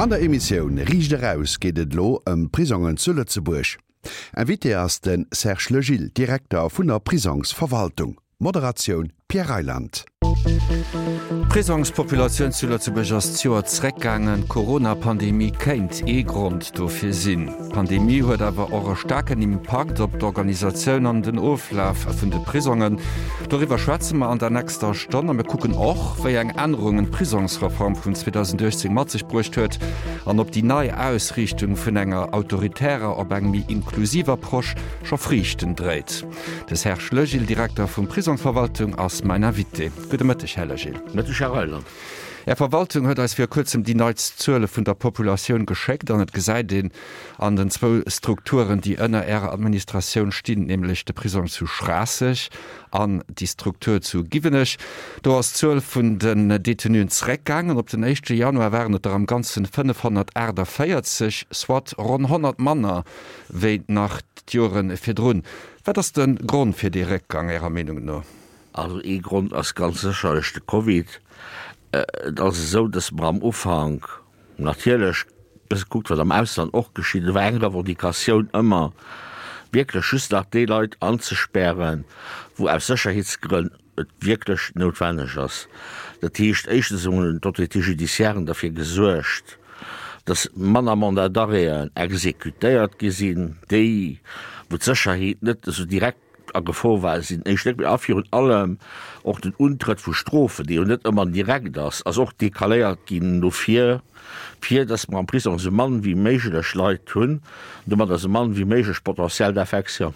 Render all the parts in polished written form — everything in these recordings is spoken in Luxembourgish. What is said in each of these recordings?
An der Emissioun Riicht Eraus geet et elo ëm Prisongen zu Lëtzebuerg. Invité ass de Serge Legil, Direkter vun der Prisongsverwaltung. Moderatioun Pierre Reyland. D'Prisongspopulatioun zu Lëtzebuerg ass d'Joer zeréckgaangen. D'Corona-Pandemie kéint ee Grond dofir sinn. D'Pandemie huet awer och e staarken Impakt op d'Organisatioun an den Oflaf vun de Prisongen. Doriwwer schwätze mer an der nächster Stonn a mir kucken och, wéi eng Ännerungen d'Prisongsreform vun 2018 mat sech bruecht huet an ob déi nei Ausriichtung vun enger autoritärer op eng méi inklusiv Approche scho Friichten dréit. De Serge Legil, Direkter vum Prisongsverwaltung, ass mäin Invité. Gudde Mëtteg, Här Legil. Mëtteg, Här Reyland. Är Verwaltung huet eis vir kuerzem déi neitst Zuele vun der Populatioun geschéckt an et gesäit een an den zwou Strukturen, déi ënner Ärer Administratioun stinn, nämlech de Prisong zu Schraasseg an déi Struktur zu Giwenech, do ass d'Zuel vun den Detenuen zeréckgaangen. Op den éischte Januar waren et der am Ganzen 548, soit ronn 100 manner wéi nach d'Jore virdrun. Wat ass de Grond fir dee Réckgang Ärer Meenung no? Also ee Grond ass ganz sécherlech de Covid. Et ass esou, datt mer am Ufank natierlech e bësse kuckt, wat am Ausland och geschitt. Et war eng Revendicatioun ëmmer, wierklech just nach déi Leit anzespären, wou aus Sécherheetsgrënn et wierklech noutwenneg ass. Dat heescht, éischtens hunn d'Autorités judiciairen derfir gesuergt, dass manner Mandats d'arrêten exécutéiert gi sinn, déi, wou d'Sécherheet net esou direkt a Gefor war, sinn éischt net méi. A virun allem och den Untrëtt vu Strofen, dee jo net ëmmer direkt ass, ass och decaléiert ginn no vir, fir dass mer am Prisong esou mann wéi méiglech Leit hunn, an domadder esou mann wéi méiglech Potentiel d'infection.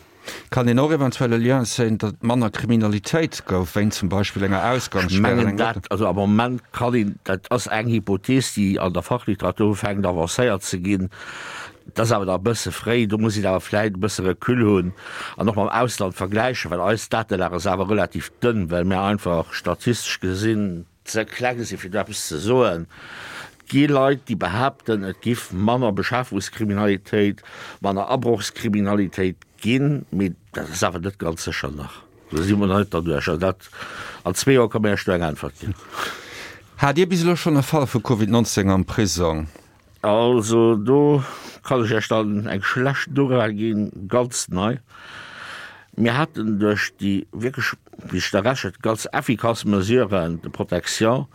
Kann een och eventuell e Lien zéien, datt et manner Kriminalitéit gouf, wéint zum Beispill enger Ech Ausgangssperr an mengen engem dat, also am Moment kann een, dat ass eng Hypothees, déi an der Fachliteratur ufänkt avancéiert ze ginn, dat ass awer nach e bësse fréi, do muss een awer vläicht e bësse Recul hunn an och mam Ausland vergläichen, well eis Datelag ass awer relativ dënn, well mir einfach statistesch gesinn, ze kleng sinn, fir do eppes ze soen. Et gi Leit, déi behaapten, et giff manner Beschaffungskriminalitéit, manner Abrochskriminalitéit ginn, mee dat ass awer net ganz sécher nach. Do si mer nach net derduerch. Also dat, an zwee Joer ka mir Iech do eng Äntwert ginn. Hat Dir bis elo schonn e Fall vu Covid 19 am Prisong? Also do kann ech Iech dann eng schlecht Nouvelle ginn, ganz nei. Mir haten duerch déi wierklech, wéi sech da rechent, ganz effikass Mesuren de protection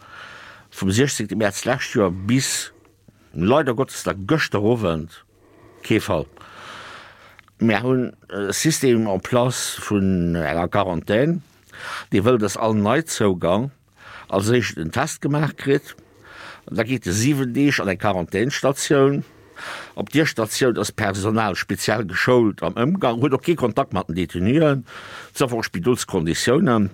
vum 16 Mäerz d'lescht Joer bis leider Gottes da gëschter Owend kee Fall. Mir hunn e System en place vun enger Quarantän, dee wëll, dass all Neizougang als éischt en Test gemaach kritt, da geet e 7 Deeg an eng Quarantänsstatioun. Op dier Statioun ass d'Personal speziell geschoult am Ëmgang, huet och kee Kontakt mat den Detenuen, sauf och Spidolskonditiounen.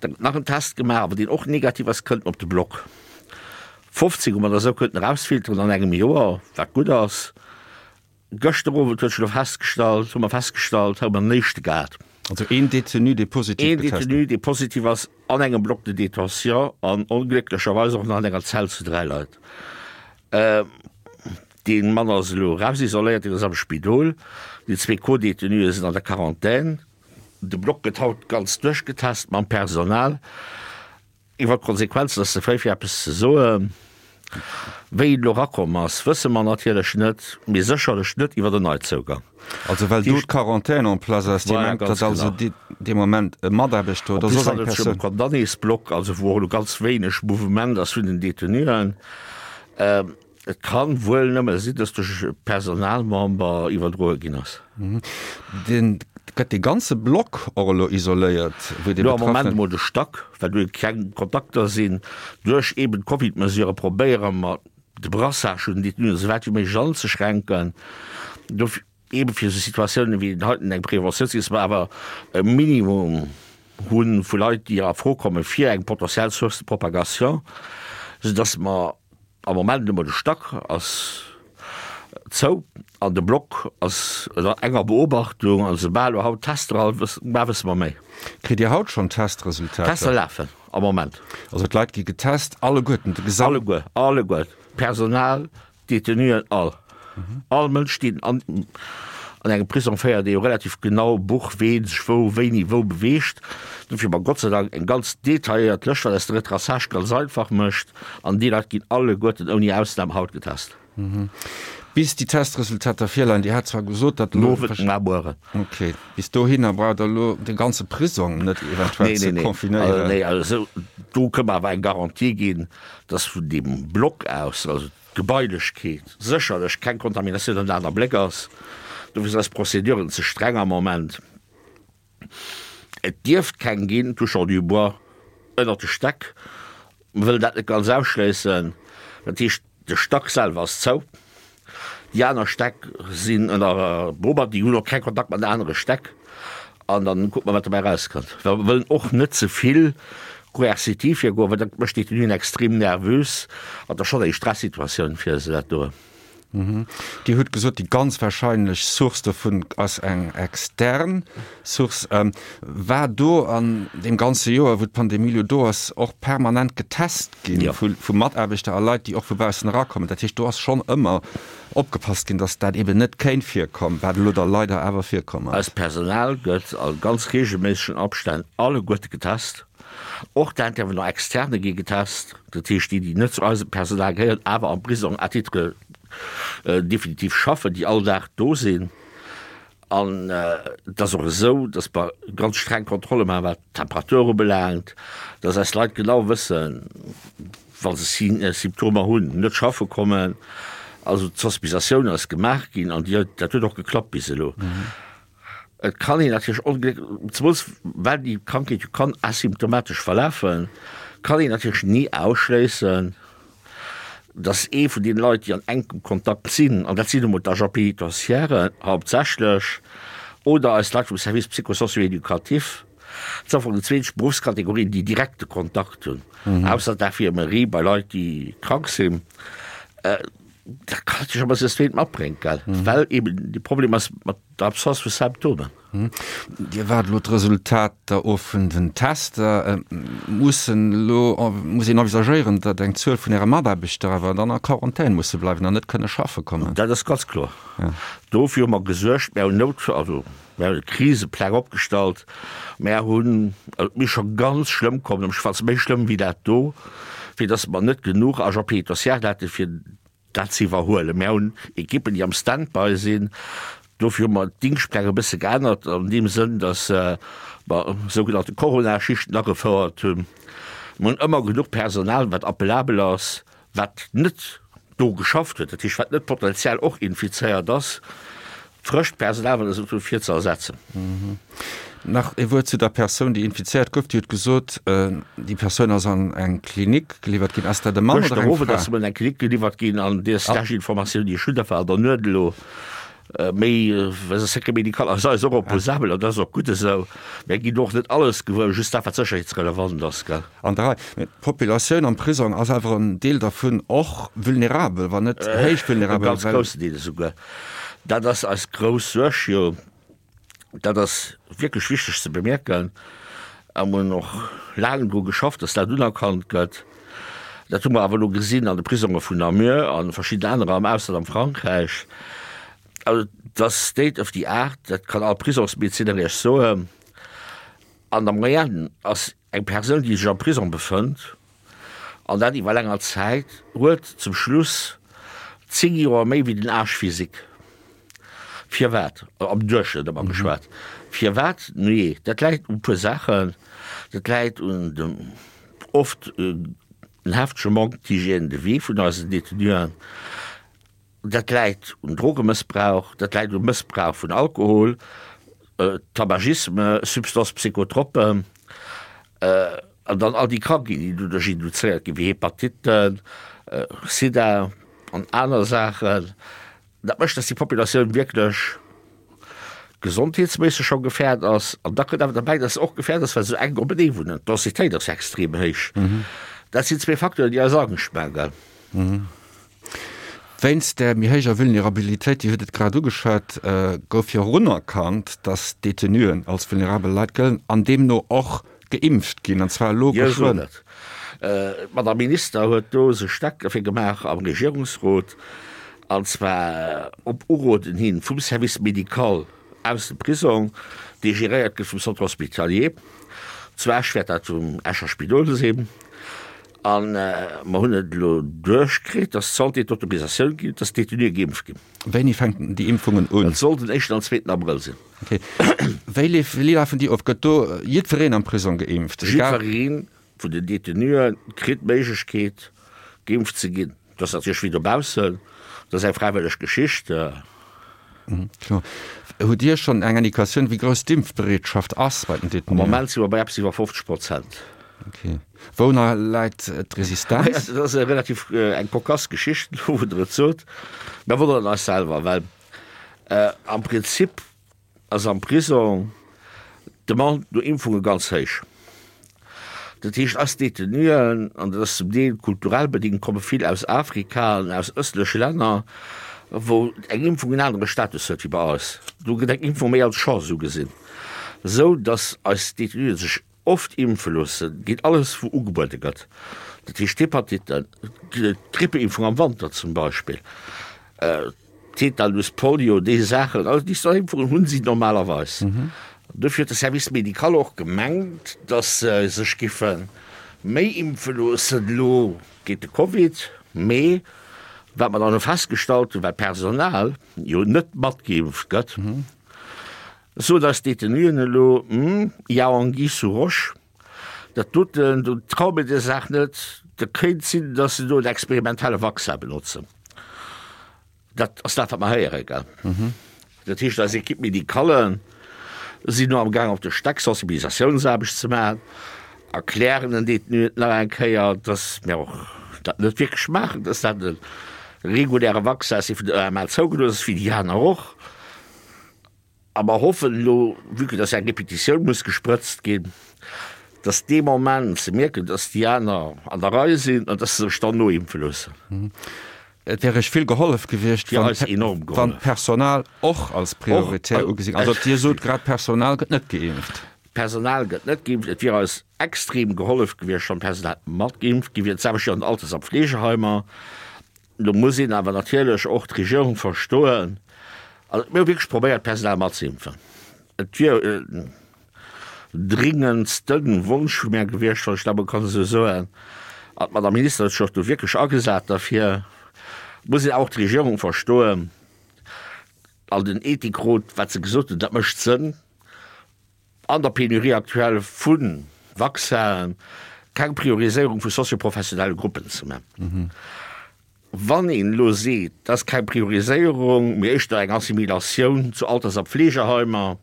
Da gëtt nach en Test gemaach, a wann deen och negativ ass, kënnt en op de Block. 15 hu mer da esou kënnten erausfilteren an engem Joer, wat gutt ass. Gëschter Owend huet sech elo festgestallt, hu mer festgestallt, hu mer en éischte gehat. Also een Detenu, dee positiv Een getest Detenu, dee positiv ass an engem Bloc de détention an onglécklecherweis och nach an enger Zell zu 3 Leit. Dee Mann ass elo erausisoléiert, deen ass am Spidol. Déi zwee Co-Detenue sinn an der Quarantän. De Bloc gëtt haut ganz duerchgetest mam Personal. Iwwer d'Konsequenzen ass ze fréi fir eppes ze soen. Wéi et elo erakomm ass, wësse mer natierlech net, mee sécherlech net iwwer en Neizougang. Also well do d'Quarantaine en place ass, Dir mengt, datt also dee Moment e Mataarbechter oder soss eng Persoun. En plus handelt et sech ëm e Condamnésblock, also wou och elo ganz wéineg Mouvement ass vun den Detenuen. Et kann wuel nëmme sinn, dass duerch e Personalmember iwwerdroe ginn ass. Den, gëtt dee ganze Block och elo isoléiert, wou dee Lo am Moment emol de Stack, well do keng Kontakter sinn. Duerch eben d'Covid-Mesurë probéiere mer de Brassage vun den Détenuen esou wäit wéi méiglech anzeschränken. Dofir eben fir esou Situatiounen wéi den heiten eng Preventioun ze ginn, dass mer awer e Minimum hu vu Leit, déi a Fro komme fir eng potentiell Source de propagation, soudass mer Am Moment emol de Stack ass zou an de Block ass ënner enger Beobachtung an soubal elo haut Tester all mar wësse mer méi. Kritt Dir haut schonn Testresultater? Tester lafen am Moment. Also d'Leit gi getest, alleguerten, de gesamten? Alleguer, alleguer, d'Personal, d'Detenuen, all. All Mënsch deen an. An engem Prisong féiert ee jo relativ genau Buch, ween sech wou, wéini, wou beweegt. Dofir hu mer Gott sei Dank eng ganz detailléiert Lëscht, wat eis de Retraçage ganz einfach mécht. An déi Leit ginn alleguerten ouni Ausnam haut getest. Bis déi Testresultater virleien, Dir hat zwar gesot, datt elo. Owend, mar mueren. Okay. Bis dohinner braucht Der elo de ganze Prisong net eventuell ze confinéieren. Nee, nee. Also do kënne mer awer eng Garantie ginn, datt vun deem Block aus, also d'Gebailechkeet, sécherlech keng Kontaminatioun an aner Bléck ass. Dofir sinn eis Prozeduren ze streng am Moment. Et dierft keng ginn, touchant du bois, ënnert de Stäck. Mer wëllen dat net ganz ausschléissen. Dat heescht, de Stack selwer ass zou. Déi aner Stäck sinn ënner Beobachtung, déi hunn och keng Kontakt mat anere Stäck. An dann kucke mer, wat dobäi erauskënnt. Well mer wëllen och net ze vill koerzitiv virgoen, well dat mécht d'Détenuen extrem nervös an dat ass schonn eng Stressituatioun fir se, dat do. Dir hutt gesot, déi ganz wahrscheinlech Source dovun ass eng extern Source. War do an deem ganze Joer, wou d'Pandemie elo do ass, och permanent getest gi vu Mataarbechter a Leit, déi och vu baussen erakommen? Dat heescht, do ass schonn ëmmer opgepasst ginn, datt dat eeben net kéint virkommen, wat elo da leider awer virkomm ass. Eist Personal gëtt a ganz reegelméissegen Abstänn alleguerte getest. Och d'Intervenants externes gi getest, dat heescht déi, déi net zu eisem Personal gehéieren, awer am Prisong à titre définitif schaffen, déi all Dag do sinn. An et ass och esou, datt mer ganz streng Kontrolle maachen, wat d'Temperatur ubelaangt, datt eis Leit genau wëssen, wa se Symptomer hunn, net schaffe kommen. Also d'Sensibilisatioun ass gemaach ginn an déi, dat huet och geklappt bis elo. Et kann een natierlech ongléck, zemools well déi Krankheet jo kann asymptomatesch verlafen, kann een natierlech ni ausschléissen, dass ee vun deene Leit, déi an enkem Kontakt sinn, an dat sinn nu mol d'Agents pénitentiaires hauptsächlech oder eis Leit vum Service psycho-socio-éducatif, dat sinn am Fong déi zweet Beruffskategorien, déi direkte Kontakt hunn, ausser d'Infirmerie bei Leit, déi krank sinn, dat kann natierlech och e bësse Stéit matbréngt, gell, well eeben de Problem ass mat der Absence vu Symptomen. Dir waart elo d'Resultater of vun den Tester. Mussen elo, muss een envisagéieren, datt eng Zuel vun Äre Mataarbechter awer dann a Quarantän musse bleiwen an net kënne schaffe kommen? Dat ass ganz kloer. Dofir hu mer gesuergt, mir hunn Nout, also mir hunn Krisepläng opgestallt, mir hunn, also et misst scho ganz schlëmm kommen, am Schwatz méi schlëmm wéi dat do, fir datt mer net genuch Agents pénitentiaires hätte fir dat ze iwwerhuelen. Mär hunn Ekippen, déi am Stand-by sinn. Dofir hu mer d'Dingschtpläng e bësse geännert an deem Sënn, datt mer sougenannte Coronaschichten agefouert hunn. Mer hunn ëmmer genuch Personal, wat appelabel ass, wat net do geschafft huet, dat heescht, wat net potenziell och infizéiert ass. Frëscht Personal, wat esou fir ze ersetzen. Nach ee Wuert zu der Persoun, déi infizéiert gouf. Dir hutt gesot, déi Persoun ass an eng Klinik geliwwert ginn. Ass dat e Mann oder eng Fra? Gëschter Owend ass se an eng Klinik geliwwert ginn an déi lescht Informatioun, déi ech hunn, dat war an der Nuet elo, méi, well se Secret médical ass eis och opposabel an dat ass och gutt esou. Mär ginn och net alles gewuer, just dat, wat sécherheetsrelevant ass, gell. An der Rei. Mee d'Populatioun am Prisong ass awer en Deel dervun och vulnerabel, wann net héich vulnerabel. E ganz groussen Deel esouguer. Dat ass eis grouss Suerg jo. Dat ass wierklech wichteg ze bemierken. A mer hunn och laang dru geschafft, dass dat unerkannt gëtt. Dat hu mer awer elo gesinn an de Prisonge vun Namur a verschidden anerer am Ausland, am Frankräich. Also et ass State of the Art, dat kann all Prisongsmedezinner Iech soen. An der Moyenne ass Eng Persoun, déi sech am Prisong befënnt, an dat iwwer länger Zäit, huet zum Schluss 10 Joer méi wéi den Âge physique. Firwat? Am Duerchschnëtt ëmmer geschwat. Firwat? Nujee, dat läit u puer Saachen. Dat läit un dem oft en heftege Manque d'hygiène de vie vun eisen Détenuen. Dat läit un Drogemëssbrauch, dat läit um Mëssbrauch vun Alkohol, Tabagisme, Substances psychotropes an dann all déi Krankheeten, déi doduerch induzéiert ginn, wéi Hepatitten, Sida an aner Saachen. Dat mécht, dass déi Populatioun wierklech gesondheetsméisseg scho gefährd ass. An da kënnt awer derbäi, dass se och gefährd ass, well se esou enk openee wunnen. D'Densitéit ass extrem héich. Dat sinn zwee Facteuren, déi eis Angscht maachen. Wéinst där méi héijer Vulnerabilitéit, Dir hutt et grad ugeschwat, gouf jo och unerkannt, datt d'Detenuen als vulnerabel Leit gëllen an deemno och geimpft ginn, an zwar elo Dir sot geschwënn. et. D'Madame Minister huet do sech staark derfir gemaach am Regierungsrot. An zwar op Uroden hin vum Service médical aus dem Prisong, dee geréiert gëtt vum Centre hospitalier. Zu Esch wäert dat vum Escher Spidol sinn. A mer hunn et elo duerchkritt, dass d'Santé d'Autorisatioun ginn huet, dass d'Détenuë geimpft ginn. Wéini fänken déi Impfungen un? Et soll den éischten an zweeten Abrëll sinn. Okay. Wéi wéi lafen déi of? Gëtt do jiddwereen am Prisong geimpft? Jiddweree vun den Detenue kritt d'Méiglechkeet, geimpft ze ginn. Dat ass natierlech wéi dobaussen, dat ass eng fräiwëlleg Geschicht. Kloer. Hutt Dir schonn eng Indikatioun, wéi grouss d'Impfbereetschaft ass bei den Detenuen? Am Moment si mer bei eppes iwwer 50 Prozent. Okay. Wou nach läit d'Resistenz? Dat ass relativ eng cocasse Geschicht, elo wou Der et sot. Mir wonneren eis selwer, well am Prinzip ass am Prisong d'Demande no Impfunge ganz héich. Dat heescht, eis Detenuen, an dat ass zum Deel kulturell bedéngt, komme vill aus Afrika an aus ëstleche Länner, wou eng Impfung en anere Status huet wéi bei eis. Do gëtt eng Impfung méi als Chance ugesinn, esou datt eis Detenuen sech oft impfe loossen géint alles, wou ugebuede gëtt. Dat heescht d'Hepatitten, d'Grippeimpfung am Wanter zum Beispill. Tetanus, Polio, déi Saachen, also déi Impfungen hunn si normalerweis. Dofir huet de Service médical och gemengt, datt se sech giffe méi impfe loossen elo géint de Covid. Mee wat mer dann elo festgestallt hunn, well d'Personal jo net matgeimpft gëtt, soen eis d'Detenuen elo, Hm, il y a anguille sous roche, dat doten, do traue mir der Saach net, dat kéint sinn, datt se do en experimentelle Vaccin benotzen. Dat ass dat, wat mer héieren, gell? Dat heescht, eis Équipe médicale sinn elo amgaang op de Stäck Sensibilisatiounsaarbecht ze maachen, erklären den Détenuen nach eng Kéier, dass mir och dat net wierklech maachen, dass dat e reguläre Vaccin ass, dee vun der EMA zougelooss ass, wéi déi aner och. A mer hoffen elo, vue que dass eng Repetitioun muss gesprëtzt ginn, dass dee Moment se mierken, dass déi aner an der Rei sinn an dass se sech dann noimpfe loossen. Et wär Iech vill gehollef gewiescht, wann d'Personal och als prioritär ugesi. Also Dir sot grad, d'Personal gëtt net geimpft. D'Personal gëtt net geimpft. Et wier eis extrem gehollef gewiescht, wann d'Personal mat geimpft gi wier. D'selwecht jo an den Alters a Pflegeheimer. Do muss een awer natierlech och d'Regierung verstoen. Also mir hu wierklech probéiert, d'Personal matzeimpfen. Et wier en dringendste Wonsch vu mär gewiescht, wann ech dat emol kann esou soen. An d'Madame Minister huet sech och do wierklech agesat derfir. Muss een awer och d'Regierung verstoen an den Ethikrot, wat se gesot hunn, dat mécht Sënn. An der Pénurie actuelle vu Vaccinen keng Prioriséierung vu sozioprofessionelle Gruppen ze man. Wann een elo seet, dat ass keng Prioriséierung, mee éischter eng Assimilatioun zu Alters a Pflegeheimer,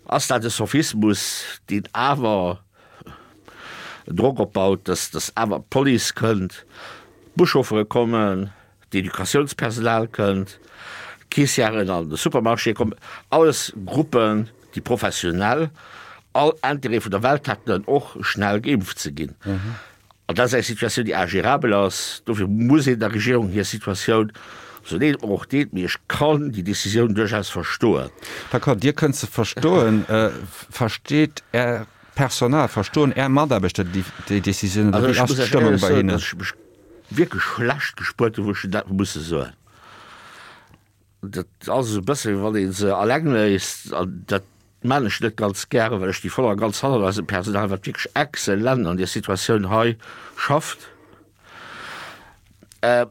ass dat e Sophismus, deen awer Drock opbaut, dass awer d'Police kënnt, d'Buschauffere kommen, d'Educatiounspersonal kënnt, d'Caissièren an de Supermarché kommen, alles Gruppen, déi professionell all Intérêt vun der Welt hätten, och schnell geimpft ze ginn. An dat ass eng Situatioun, déi ingérabel ass. Dofir muss een der Regierung hir Situatioun, sou leed et mer och deet, mee ech kann déi Décisioun duerchaus verstoen. D'accord, Dir kënnt se verstoen. Versteet Är Personal, verstoen Är Mataarbechter déi Décisioun oder wéi ass d'Stëmmung bei hinnen? Wierklech schlecht gespuert hunn, wou ech dat hu musse soen. Dat ass esou e bësse wéi wann ee se alleng léisst an dat maan ech net ganz gären, well ech sti voll a ganz hannert eisem Personal, wat wierklech exzellent an där Situatioun hei schafft. Ech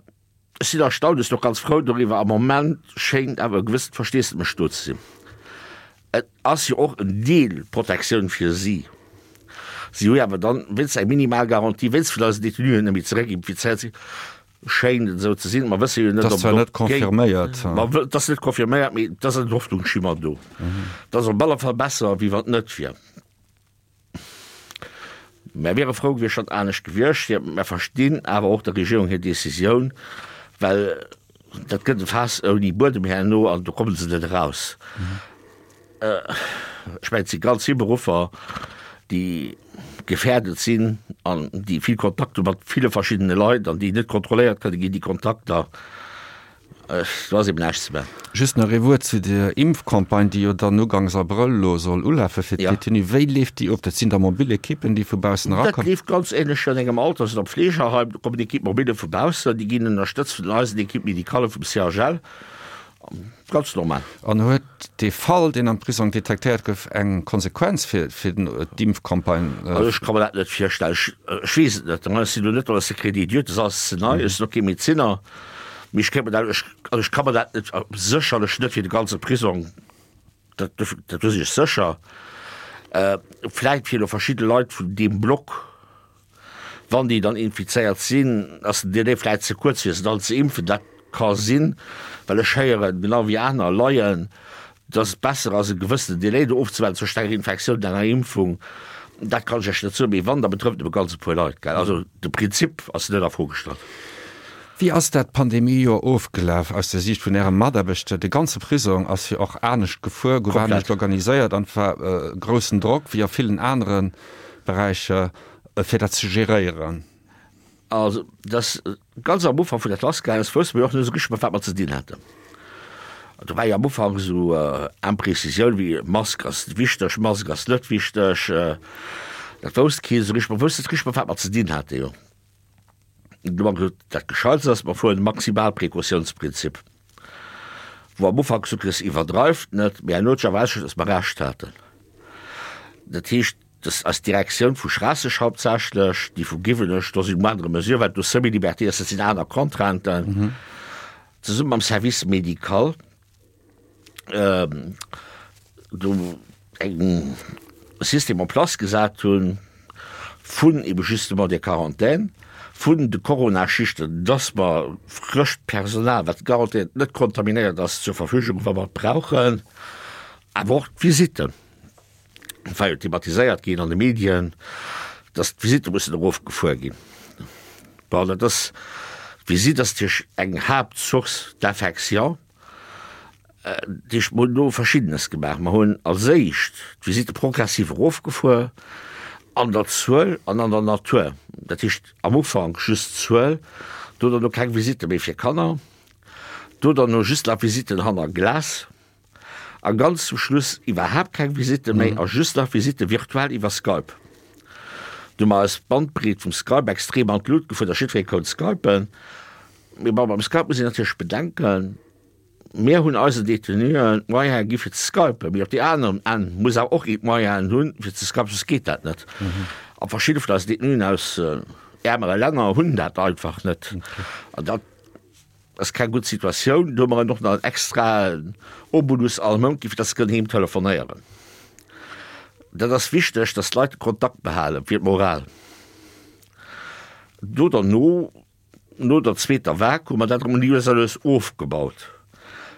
sinn erstaunt, ech sinn och ganz frou doriwwer. Am Moment schéngt awer e gewëssent Versteesdemech do ze sinn. Et ass jo och en Deel Protektioun fir si. Si hu jo awer dann wéinst eng minimal Garantie, wéinst vun eisen Detenuen net méi zeréckinfizéiert sinn, schéint et esou ze sinn. Mer wësse jo net, ob et och géint. Ma et ass net confirméiert, mee et ass en Hoffnungsschimmer do. Et ass op alle Fall besser, wéi wann et net wier. Mär wiere frou gewiescht, wann et anescht gewiescht wier. Mär verstinn awer och der Regierung hir Decisioun, well dat gëtt e Faass ouni Buedem herno an do komme se net eraus. Ech mengen, et si ganz vill Beruffer, déi gefährdet sinn an déi vill Kontakt hu mat ville verschiddene Leit an déi net kontrolléiert kënne ginn, déi Kontakter. Do ass eben näischt ze maachen. Just nach ee Wuert zu der Impfcampagne, déi jo dann ugangs Abrëll elo soll ulafe fir d'Détenus. Wéi leeft déi of? Dat sinn da mobil Ekippen, déi vu baussen erakommen? Dat leeft ganz änlech wéi an engem Alters oder Pflegeheim. Do kommen Equipe mobile vu baussen, déi ginn ënnerstëtzt vun eisen Equipe médicale vum CHL. Ganz normal. An huet dee Fall, deen am Prisong detektéiert gouf, eng Konsequenz fir d'Impfcampagne? Also ech ka mer dat net virstellen. Ech weess et net. Ech sinn elo net dans le secret des dieux, dat ass alles ze nei. Ech sinn och kee Medezinner. Mee ech kéint mer dat, also ech ka mer dat net, sécherlech net fir de ganze Prisong, dat, dat do sinn ech sécher. Vläit fir elo verschidde Leit vun deem Block, wann déi dann infizéiert sinn, ass den Delai vläit ze kuerz fir se dann ze impfen. Dat ka sinn, well ech héieren, genau wéi aner Laien, dass et besser ass e gewëssenen Delai do ofzewaarden zwëschent enger Infektioun an enger Impfung. Dat kann ech Iech net soen, mee wann, da betrëfft et nëmme ganz e puer Leit, gell. Also de Prinzip ass net a Fro gestallt. Wéi ass dat Pandemiejoer ofgelaf aus der Siicht vun Äre Mataarbechter? De ganze Prisong ass jo och anescht gefuer, gouf anescht organiséiert an et war groussen Drock, wéi a villen anere Beräicher, fir dat ze geréieren. Also dass ganz am Ufank vun der Klass gaangen ass, wousste mer jo och net esou richteg mat wat mer ze dinn haten. Do war jo am Ufank esou Imprecisioun wéi Mask ass wichteg, Mask ass net wichteg. Dat wousst keen esou richteg. Mer woussten net richteg mat wat mer ze dinn haten jo. Du hu mer gesot, dat Gescheitst ass, mer fueren de Maximalprecautiounsprinzip, wou am Ufank gesot ginn ass, iwwerdreift net, mee herno huet sech awer erausgestallt, datt mer Recht haten. Dat heescht, dass eis Direktioun vu Schraasseg hauptsächlech, déi vu Giwenech, do si moindre mesure, well do Semi-liberté ass, dat sinn aner Contrainten, zesumme mam Service médical do eng System en place gesat hunn vun ebe justement där Quarantaine, vun de Coronaschichten, dass mer frëscht Personal, wat garantéiert net kontaminéiert ass, zur Verfügung, wa mer et brauchen, awer och d'Visitten. Et war jo thematiséiert ginn an de Medien, dass d'Visitte mussen erofgefuer ginn. Bon, dat ass, d'Visitt ass natierlech eng Haaptsource d'infection. Dat heescht, mer hunn do Verschiddenes gemaach. Mer hunn als éischt d'Visitte progressiv erofgefuer an der Zuel an an der Natur. Dat heescht am Ufank just d'Zuel, do derno keng Visitte méi fir Kanner, do derno just nach Visitten hanner Glas. A ganz zum Schluss iwwerhaapt keng Visitte méi a just nach Visitte virtuell iwwer Skype. Du hu mer eis d'Bandbreet vum Skype extrem an d'Lut gefuer, datt jiddweree konnt skypen. Mee bon, beim Skype muss een natierlech bedenken, mir hunn eisen Detenuen d'Moyene gi fir ze skypen, mee op deem aneren Enn muss awer och een d'Moyenen hunn fir ze skypen, soss geet dat net. A verschidde vun eisen Detenuen aus äermere Länner hunn dat einfach net. An dat Ass keng gutt Situatioun. Do hu mer en och nach en extraen Obolus all Mount gi fir dass se kënnen heem telefonéieren. Dat ass wichteg, dass d'Leit de Kontakt behalen fir d'Moral. Do derno, no der zweeter Vague, hu mer dat erëm lues a lues ofgebaut.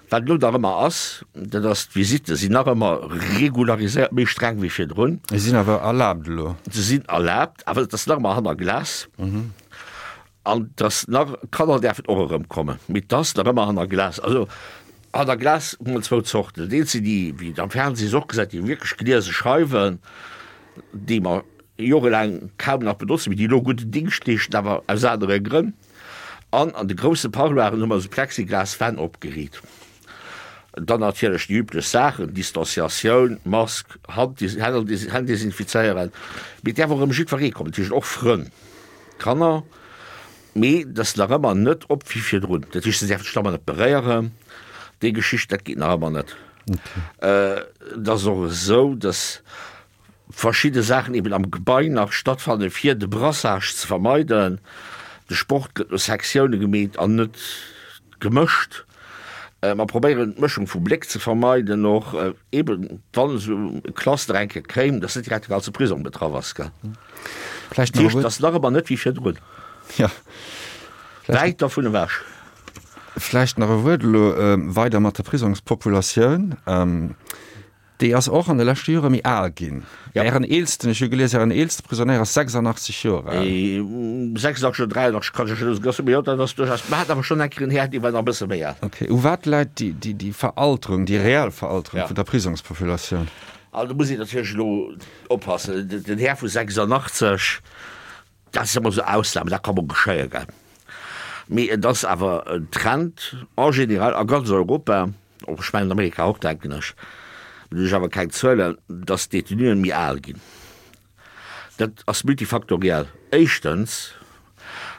Wat elo nach ëmmer ass, dat ass, d'Visitte sinn nach ëmmer regulariséiert, méi streng wéi virdrun. Se sinn awer erlaabt elo. Se sinn erlaabt, awer et ass nach ëmmer hanner Glas. An dass nach, d'Kanner däerfen och erëmkommen, mee 't ass nach ëmmer hanner Glas. Also hanner Glas hu mer zwou Zorten. Dat eent sinn déi, wéi et am Fernseh och gesäit, déi wierklech gliese Scheiwen, déi mer jorelaang kaum nach benotzen, mee déi elo gudden Dingscht leeschten, awer aus anere Grënn. An an de grousse Parloiren hu mer esou Plexiglaswänn opgeriit. Dann natierlech déi üblech Saachen, Distanciatioun, Mask, Hand, Hänn desinfizéieren. Mee et däerf och erëm jiddweree kommen, dat heescht och Frënn. Kanner, mee et ass nach ëmmer net op wéi virdrun. Dat heescht, se däerfen sech nach ëmmer net beréieren, déi Geschicht, dat geet nach ëmmer net. Et ass och esou, datt verschidde Saachen eben am Gebai nach stattfannen, fir de Brassage ze vermeiden. De Sport gëtt no Sektioune gemeet an net gemëscht. Mer probéieren d'Mëschung vu Bléck ze vermeiden, och eben wann esou e Cluster eng Kéier kéim, datt net direkt de ganze Prisong betraff ass, gell. Vläicht nach e Dat heescht, Wuert. et ass nach ëmmer net wéi virdrun. Ja. Vläicht. Wäit dervun ewech. Vläicht nach e Wuert elo weider mat der Prisongspopulatioun. Déi ass och an de leschte Jore méi al ginn. Ja. Ären eelsten, ech hu gelies, Ären eelste Prisonéier ass 86 Joer al. 86 oder 83, kann ech elo net, mee jo, dat ass duerchaus, mer haten awer schonn eng Kéier en Här, dee war nach e bësse méi al. Okay. U wat läit déi, déi, déi Veralterung, déi reell Veralterung Ja. vun der Prisongspopulatioun? Also do muss een natierlech elo oppassen, den Här vu 86, dat ass ëmmer esou Ausnamen, dat ka mol geschéien, gell. Mee et ass awer en Trend en général a ganz Europa, och ech mengen an Amerika och, denken ech, do hunn ech awer keng Zuelen, datt d'Detenuen méi al ginn. Dat ass multifaktoriell. Éischtens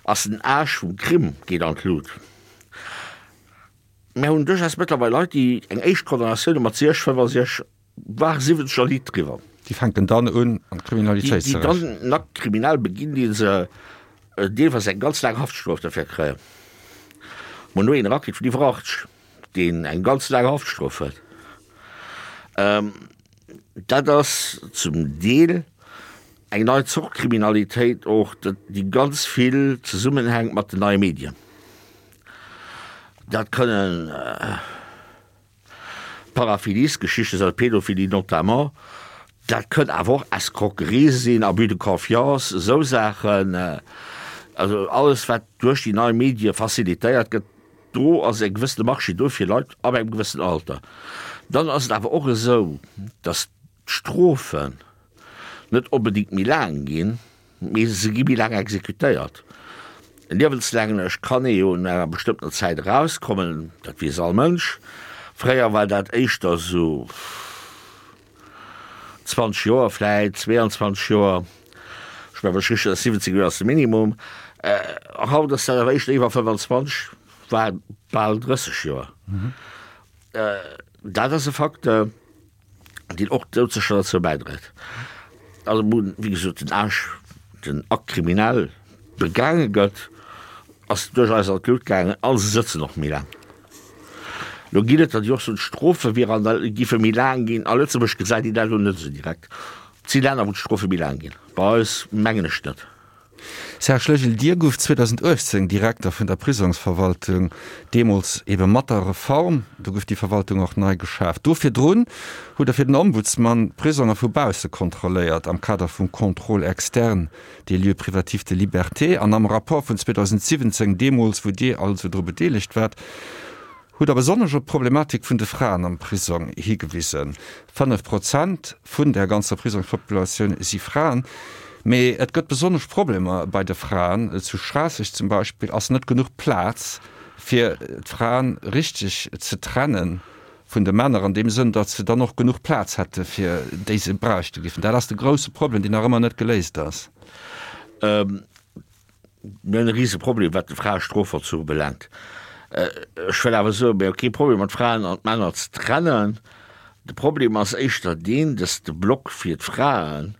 ass den Âge vum Crime geet an d'Lut. Mär hunn duerchaus mëttlerweil Leit, déi eng éischt Condamnatioun hu mat 60, 65, war 70 a liit driwwer. Déi fänken dann un an d'Kriminalitéit ze rëtschen. Déi dann en Acte criminel beginn, dee se deelweis eng ganz laang Haftstrof derfir kréien. Mer hunn elo een erakritt vun iwwer 80, deen eng ganz laang Haftstrof huet. Dat ass zum Deel eng nei Zort Kriminalitéit och, déi ganz vill zesummenhänkt mat den neie Medien. Dat kënnen Paraphiliesgeschichte sinn, Pädophilie notamment, dat kënnt awer och Escroquerie sinn, Abus de confiance, esou Saachen. Also alles wat duerch déi nei Medie facilitéiert gëtt, do ass e gewëssene Marché do fir Leit ab engem gewëssenen Alter. Dann ass et awer och esou, datt d'Strofen net onbedéngt méi laang ginn, Mee se gi méi laang exekutéiert. Liewenslänglech kann ee jo no enger bestëmmtener Zäit erauskommen, dat weess all Mënsch. Fréier war dat éischter esou 20 Joer vläit, 22 Joer, ech mengen, wann ech richteg, 17 Joer ass de Minimum. Haut ass dat awer éischter iwwer 25, war bal 30 Joer. Dat ass e Facteur. deen och doudsécher derzou bäidréit. Also wou, wéi gesot, den Age, den Acte criminel begaange gëtt, ass duerch eis an d'Lut gaangen a se sëtzen och méi laang. Lo ginn et der, déi och soen, d'Strofe wier an der, géife méi laang ginn. A Lëtzebuerg gesäit een dat elo net esou direkt. Et si Länner, wou d'Strofe méi laang ginn, bei eis mengen ech net. Serge Legil, Dir gouft 2018 Direkter vun der Prisongsverwaltung, deemools ebe mat der Reform, do gouf déi Verwaltung och nei geschaaft. Do virdrun hutt Der fir den Ombudsman d'Prisonger vu bausse kontrolléiert am Kader vum Contrôle externe des lieux privatifs de liberté. An am Rapport vun 2017, deemools wou Dir also dru bedeelegt waart, hutt Der besonnesch op d'Problematik vun de Fraen am Prisong higewisen. 5 Prozent vun der ganzer Prisongspopulatioun si Fraen. Mee et gëtt besonnesch Problemer bei de Fraen. Zu Schraasseg zum Beispill ass net genuch Plaz, fir d'Fraen richteg ze trenne vun de Männer, an deem Sënn, datt se dann och genuch Plaz hätte fir déi se bräichte géifen. Dat ass de grousse Problem, deen nach ëmmer net geléist ass. Mir hunn e rise Problem, wat de Fraestrofvollzuch ubelaangt. Ech wëll awer soen, mir hu kee Problem mat Fraen an d'Männer ze trennen. De Problem ass éischter deen, dass de Block fir d'Fraen,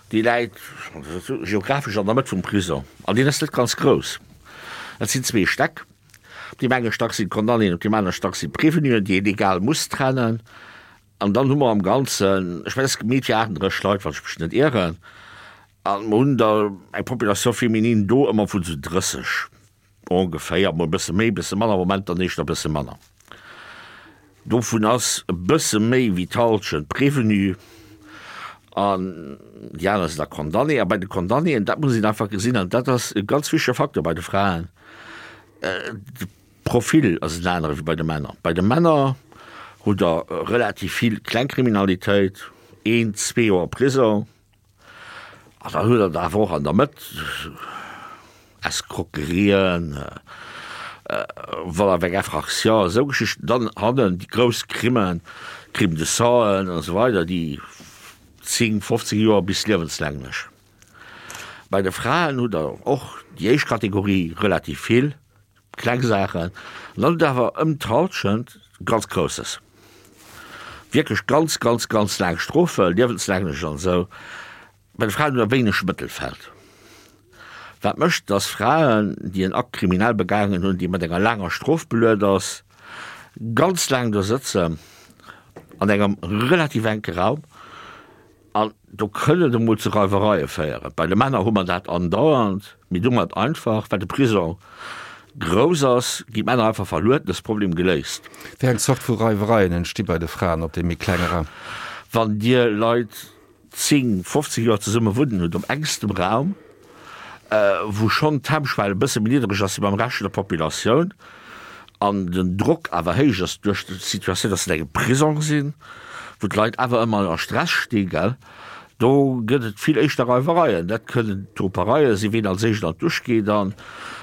dee läit geographesch an der Mëtt vum Prisong an deen ass net ganz grouss. Dat sinn zwee Stäck. Op deem enge Stack sinn d'Condamnéen, op deem anere Stack sinn d'Prévenuen, déi een egal muss trennen. An dann hu mer am Ganzen, ech mengen, et ass gemeet fir 38 Leit, wann ech mech net ieren. A mer hunn der eng Population féminine do ëmmer vun esou 30 ongeféier, mol e bësse méi, e bësse manner, am Moment dann éischter e bësse manner. Dovun ass e bësse méi wéi d'Hallschent prévenu an déi aner sinn da condamné. A bei de Condamnéen, dat muss een einfach gesinn, an dat ass e ganz wichtege Facteur bei de Fraen, de Profil ass en anere wéi bei de Männer. Bei de Männer hutt Der relativ vill Klengkriminalitéit, een, zwee Joer Prisong. An dann huet Der awer och an der Mëtt Escroquerien, vol avec infraction, esou Geschichten. Dann hannen déi grouss Crimen, Crimes de sang an esou weider, déi 10, 15 Joer bis liewenslänglech. Bei de Fraen hutt Der och déi éischt Kategorie relativ vill. Kleng Saachen, an dann hutt Der awer ëm d'Halschent ganz Grousses. Wierklech ganz, ganz, ganz laang Strofen, liewenslänglech an esou. Bei de Fraen hutt Der wéineg Mëttelfeld. Wat mécht, dass Fraen, déi en Acte criminel begaangen hunn, dee mat enger laanger Strof beluet ass, ganz laang do sëtzen an engem relativ enke Raum. An do kënn et emol zu Reiwereie féieren. Bei de Männer hu mer dat andauernd, mee do mat einfach, well de Prisong grouss ass, ginn d'Männer einfach verluet, an ass de Problem geléist. Wéi eng Zort vu Reiwereien entsti bei de Fraen op deem méi klenge Raum? Wann Dir Leit 10, 15 Joer zesumme wunnen hutt op engstem Raum, wou schonn d'Hemmschwell e bësse méi niddereg ass wéi beim Rescht vun der Populatioun an den Drock awer héich ass duerch d'Situatioun, dass se an engem Prisong sinn, wou d'Leit awer ëmmer a Stress sti, gell. Do gëtt et vill éischter Reiwereien. Dat kënnen Topereie sinn, ween als éischt an d'Dusch geet an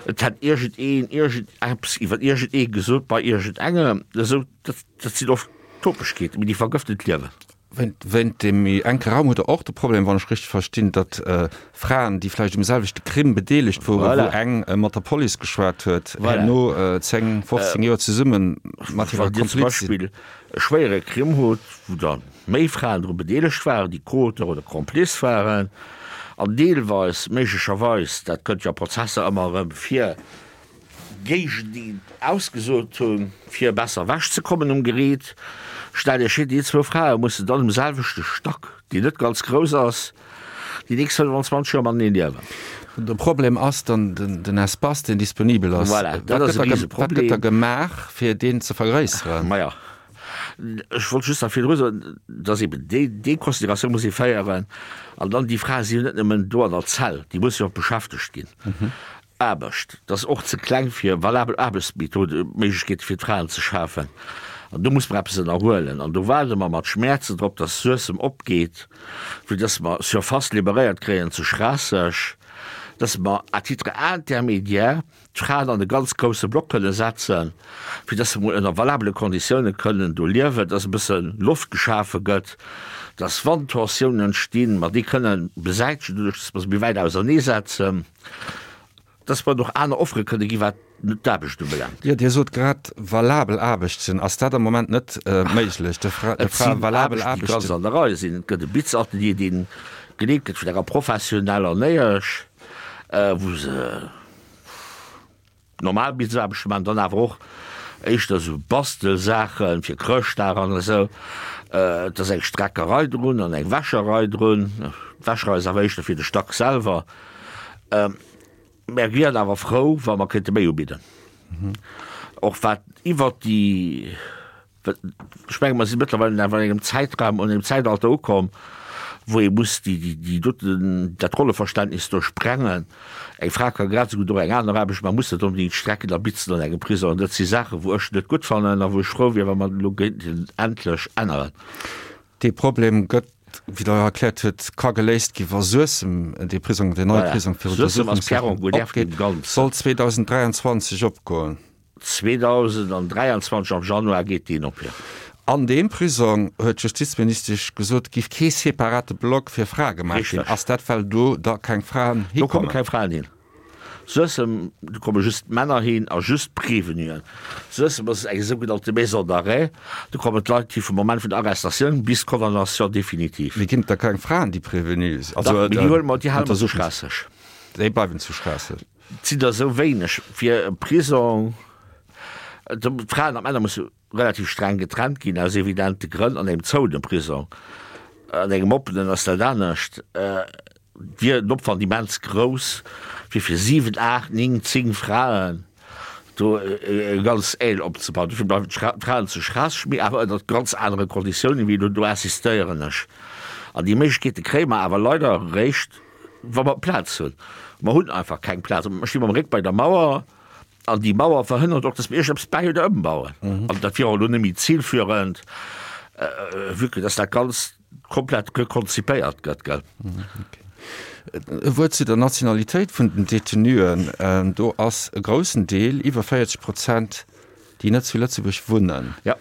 et hätt iergend een iergend eppes iwwer iergend ee gesot bei iergend engem. Esou, dat, dat sinn oft Topegkeeten, mee déi vergëften d'Liewen. Wéint deem méi enke Raum hutt Der och de Problem, wann ech richteg verstinn, datt Fraen, déi vläicht um selwechte Crime bedeelegt woren, wou eng mat der Police geschwat huet, herno 10, 15 Joer zesumme mat hirer Kompliz sinn. Wann Dir zum Beispill e schwéiere Crime hutt, wou da méi Fraen dru bedeelegt waren, déi Co-Auteur oder Complice waren, an deelweis méiglecherweis, dat kënnt jo a Prozesser ëmmer erëm vir, géigeneen ausgesot hunn, fir besser ewech ze kommen um Geriit. Stellt Iech vir, déi zwou Frae mussen dann um selwechte Stack, deen net ganz grouss ass, déi nächst 25 Joer matenee liewen. De Problem ass dann den Espace, deen disponibel ass. Voilà, dat ass e Riseproblem. Wat gëtt da gemaach, fir deen ze vergréisseren? Maja, ech wollt just nach virdru soen, dass eben déi, déi Consideratioun muss ee féieren. An dann, déi Frae si jo net nëmmen do an der Zell, déi musse jo och beschäftegt ginn. Aarbecht, dat ass och ze kleng fir valabel Aarbechtsmethode, Méiglechkeete fir d'Fraen ze schafen. An do muss mer eppes ënnerhuelen. An do waarde mer mat Schmäerzen drop, dass Suessem opgeet, fir dass mer Surface liberéiert kréien zu Schraasseg, dass mer à titre intermédiaire d'Fraen an e ganz grousse Block kënne setzen, fir dass se mol ënner valabele Konditiounen kënnen do liewen, dass e bësse Loft geschafe gëtt, dass wann Tensiounen entstinn, mer déi kënnen besäitegen, doduerch dass mer se méi wäit auserneesetzen. Dass mer och aner Offere kënne gi wat d'Aarbecht ubelaangt. Jo, Dir sot grad valabel Aarbechten. Ass dat am Moment net méiglech, de Frae Et sinn valabel Aarbechten, déi ganz Aarbechten? an der Rei sinn. Et gëtt e Bitzatelier, dee geleet gëtt vun enger professioneller Néiesch, wou se Normal Bitzaarbechte maachen, dann awer och éischter esou Bastelsaachen fir Chrëschtdag an esou. Et ass eng Streckerei drun an eng Wäscherei drun. D'Wäscherei ass awer éischter fir de Stack selwer. Mär wieren awer frou, wa mer kéinte méi ubidden. Och wat iwwert déi. Ech menge mer si mëttlerweil awer an engem Zäitraum, an engem Zäitalter ukomm, wou ee muss déi, déi, déi doten, dat Rolleverständnis do sprengen. Eng Fra ka grad esou gutt och eng aner Aarbecht maachen, muss net onbedéngt strecken a bitzen an engem Prisong. An dat si Saachen, wou ech net gutt fannen a wou ech frou wier, wa mer dat elo géinten endlech änneren. Dee Problem gëtt, wéi Der erkläert hutt, ka geléist gi wa Suessem, dee Prisong, deen neie Prisong fir Untersuchungshäft opgeet, soll 2023 opgoen. 2023 am Januar geet deen op, jo. An deem Prisong, huet d'Justizministesch gesot, giff kee separate Block fir Frae gemaach ginn. Ass dat, well do da keng Fraen hikommen? Do komme keng Fraen hin. Suessem, do komme just Männer hin a just Prévenuen. Suessem ass eng sougenannte Maison d'arrêt, do kommen d'Leit hi vum Moment vun der Arrestatioun bis d'Condamnation définitive. Mee ginn et da keng Fraen, déi Prévenue sinn? Dach, mee déi huele mer, déi hale mer zu Schraasseg. Déi bleiwen zu Schraasseg. Et sinn der esou wéineg fir e Prisong. D'Fraen an d'Männer musse relativ streng getrennt ginn, aus evidente Grënn, an engem zouene Prisong. An engem oppenen ass dat anescht. Wier den Opwand immens grouss, fir fir 7, 8, 9, 10 Fraen do e ganz Aile opzebauen. Dofir bleiwen d'Fraen zu Schraasseg, mee awer ënnert ganz anere Konditiounen wéi elo. Do insistéieren ech. An déi Méiglechkeete kréie mer awer leider eréischt, Wa mer Plaz hunn. Mer hunn einfach keng Plaz. Mer sti mam Réck bei der Mauer an déi Mauer verhënnert och, dass mer iergendeppes bäi oder ëmbauen. An dat wier och elo net méi zilführend, vue que dass dat Ganzt komplett rekonzipéiert gëtt, gell. E Wuert zu der Nationalitéit vun den Detenuen. Do ass e groussen Deel, iwwer 40 Prozent, déi net zu Lëtzebuerg wunnen. Ja.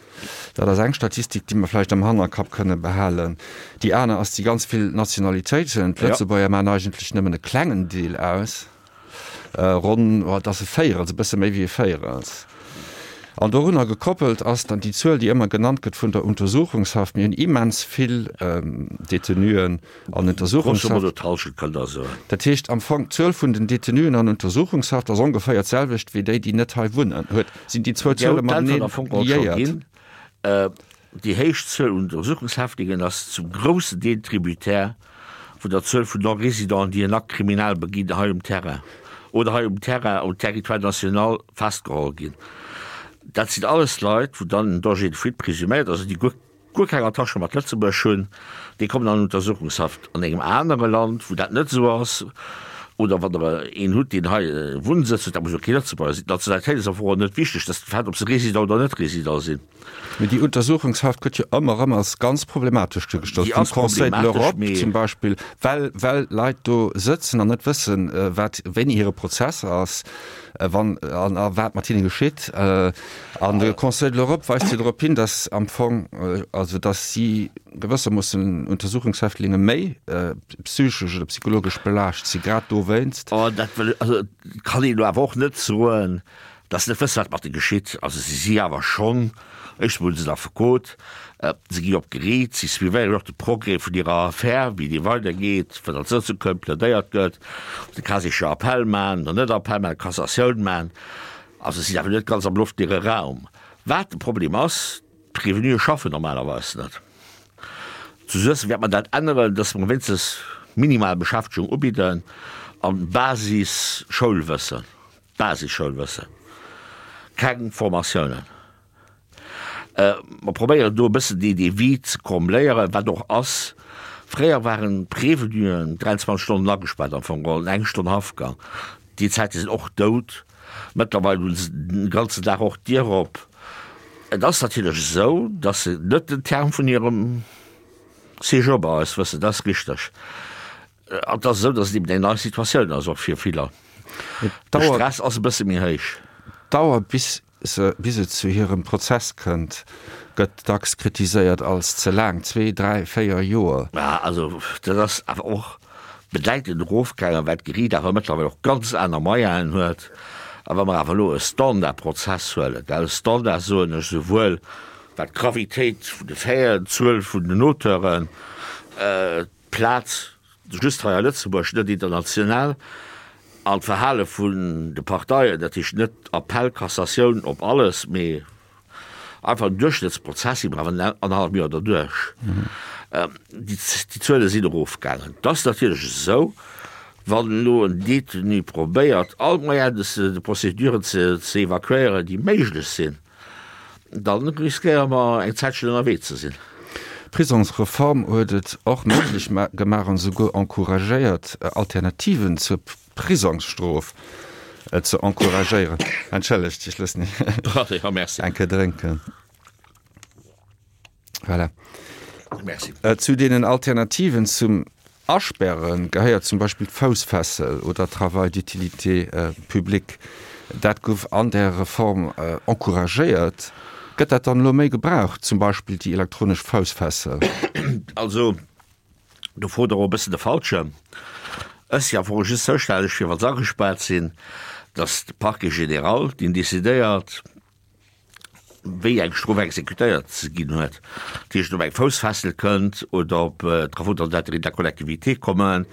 Dat ass eng Statistik, déi mer vläicht am Hannerkapp kënne behalen. Déi aner ass déi ganz vill Nationalitéiten. D'Lëtzebuerger maachen eigentlech nëmmen e klengen Deel aus, ronn, oh, et ass e Véierels, e bësse méi wéi e Véierels. An dorunner gekoppelt ass dann déi Zuel, déi ëmmer genannt gëtt vun der Untersuchungshaft. Mir hunn immens vill Detenuen an Untersuchungshaft. Grosso modo d'Hallschent, kënnt Der soen. Dat heescht am Fong, d'Zuel vun den Detenuen an Untersuchungshaft ass ongeféier d'selwecht wéi déi, déi net hei wunnen. Huet, sinn déi zwou Zuele mateneen liéiert? Déi héich Zuel un Untersuchungshäftlingen ass zum groussen Deel tributaire vun der Zuel vun Non-Résidenten, déi en Acte criminel beginn hei um Terrain oder hei um Terrain, um Territoire national festgeholl ginn. Dat sinn alles Leit, wou dann en Danger de fuite présuméiert ass, also déi guer guer keng Attache mat Lëtzebuerg hunn, déi kommen an Untersuchungshaft. An engem anere Land, wou dat net esou ass, Oder wann Der een hutt, deen hei e Wunnsëtz huet, dat muss jo kee Lëtzebuerger sinn. D'Nationalitéit ass am Fong och net wichteg, dat ass de Fait, ob se Résident oder net Résident sinn. Mee déi Untersuchungshaft gëtt jo ëmmer erëm als ganz problematesch duergestallt, Déi vum ass Conseil de problematesch, l'Europe mee. zum Beispill, well, well Leit do sëtzen an net wëssen, wat, wéini hire Prozess ass, wann an a wat mat hinne geschitt. An de Conseil de l'Europe weist jo drop hin, datt am Fong, also datt si gewëssermoossen Untersuchungshäftlinge méi psychesch oder psychologesch belaascht si, grad dowéinst. Oh, dat wëll ech, also kann een elo awer och net soen, datt se net wësse wat mat de geschitt. Also si si awer schonn, éischtens mol hu se en Affekot, se gi op d'Geriicht, si suivéieren och de Progrès vun hirer Affär, wéi déi weidergeet, wat als Sëtzung kënnt, plädéiert gëtt, ob se cas échéant Appell maachen oder net Appell maachen, Cassatioun maachen. Also si sinn awer net ganz am luftleere Raum. Wat de Problem ass, D'Prévenuë schaffen normalerweis net. Zu Suessem wäert mer dat änneren, dass mer wéinstens minimal Beschäftegung ubidden an Basis-Schoulwëssen, Basis-Schoulwëssen, keng Formatiounen. Mer probéieren do e bëssen dee dee Vide ze combléieren, wat och ass. Fréier waren d'Prévenuen 23 Stonnen agespaart am Fong geholl, eng Stonn Haftgang. Déi Zäite sinn och dout. Mëttlerweil hu se den ganzen Dag och d'Dier op. Et ass natierlech esou, datt se net den Terme vun hirem Séjour bei eis wëssen, dat ass richteg. An et ass esou, datt et eben eng nei Situatioun ass och fir viller. De Stress ass e bësse méi héich. D'Dauer bis se bis et zu hirem Prozess kënnt, gëtt dacks kritiséiert als ze laang, zwee, dräi, véier Joer. Mä also dat ass awer och bedäitend erofgaangen, well d'Geriicht awer mëttlerweil och ganz aner Moyenen huet. A wa mer awer elo e Standardprozess huelen, well Standard soen ech souwuel wat d'Gravitéit vun de Faiten, d'Zuel vun den Auteuren, d'Plaz just hei a Lëtzebuerg, net international, an d'Verhale vun de Parteien, dat heescht net Appell, Cassatioun op alles, mee einfach en Duerchschnëttsprozess, si mer awer annerhallef Joer derduerch. Déi Zuele sinn erofgaangen. Et ass natierlech esou, wann elo en Détenu probéiert, all d'Moyens de procédure ze evakuéieren, déi méiglech sinn, Dann riskéiere mer eng Zäitchen ënnerwee ze sinn. D'Prisongsreform huet et och méiglech gemaach an esouguer encouragéiert, Alternativen zur Prisongsstrof ze encouragéieren. Entschëllegt, ech loossen Iech eng Kéier drénken. Voilà. Merci. Zu deenen Alternativen zum Asperre gehéiert zum Beispill d'Foussfessel oder Travail d'utilité publique. Dat gouf an där Reform encouragéiert. Gëtt dat dann elo méi gebraucht, zum Beispill déi elektronesch Foussfessel? Also, do frot Der och e bëssen de Falschen. Ech si am Fong just zoustänneg fir, wa se agespaart sinn, dass de Parquet général, deen decidéiert, wéi eng Strof exekutéiert ze ginn huet, dat heescht ob eng Foussfessel kënnt oder ob Travaux dans l'intérêt de la collectivité kommen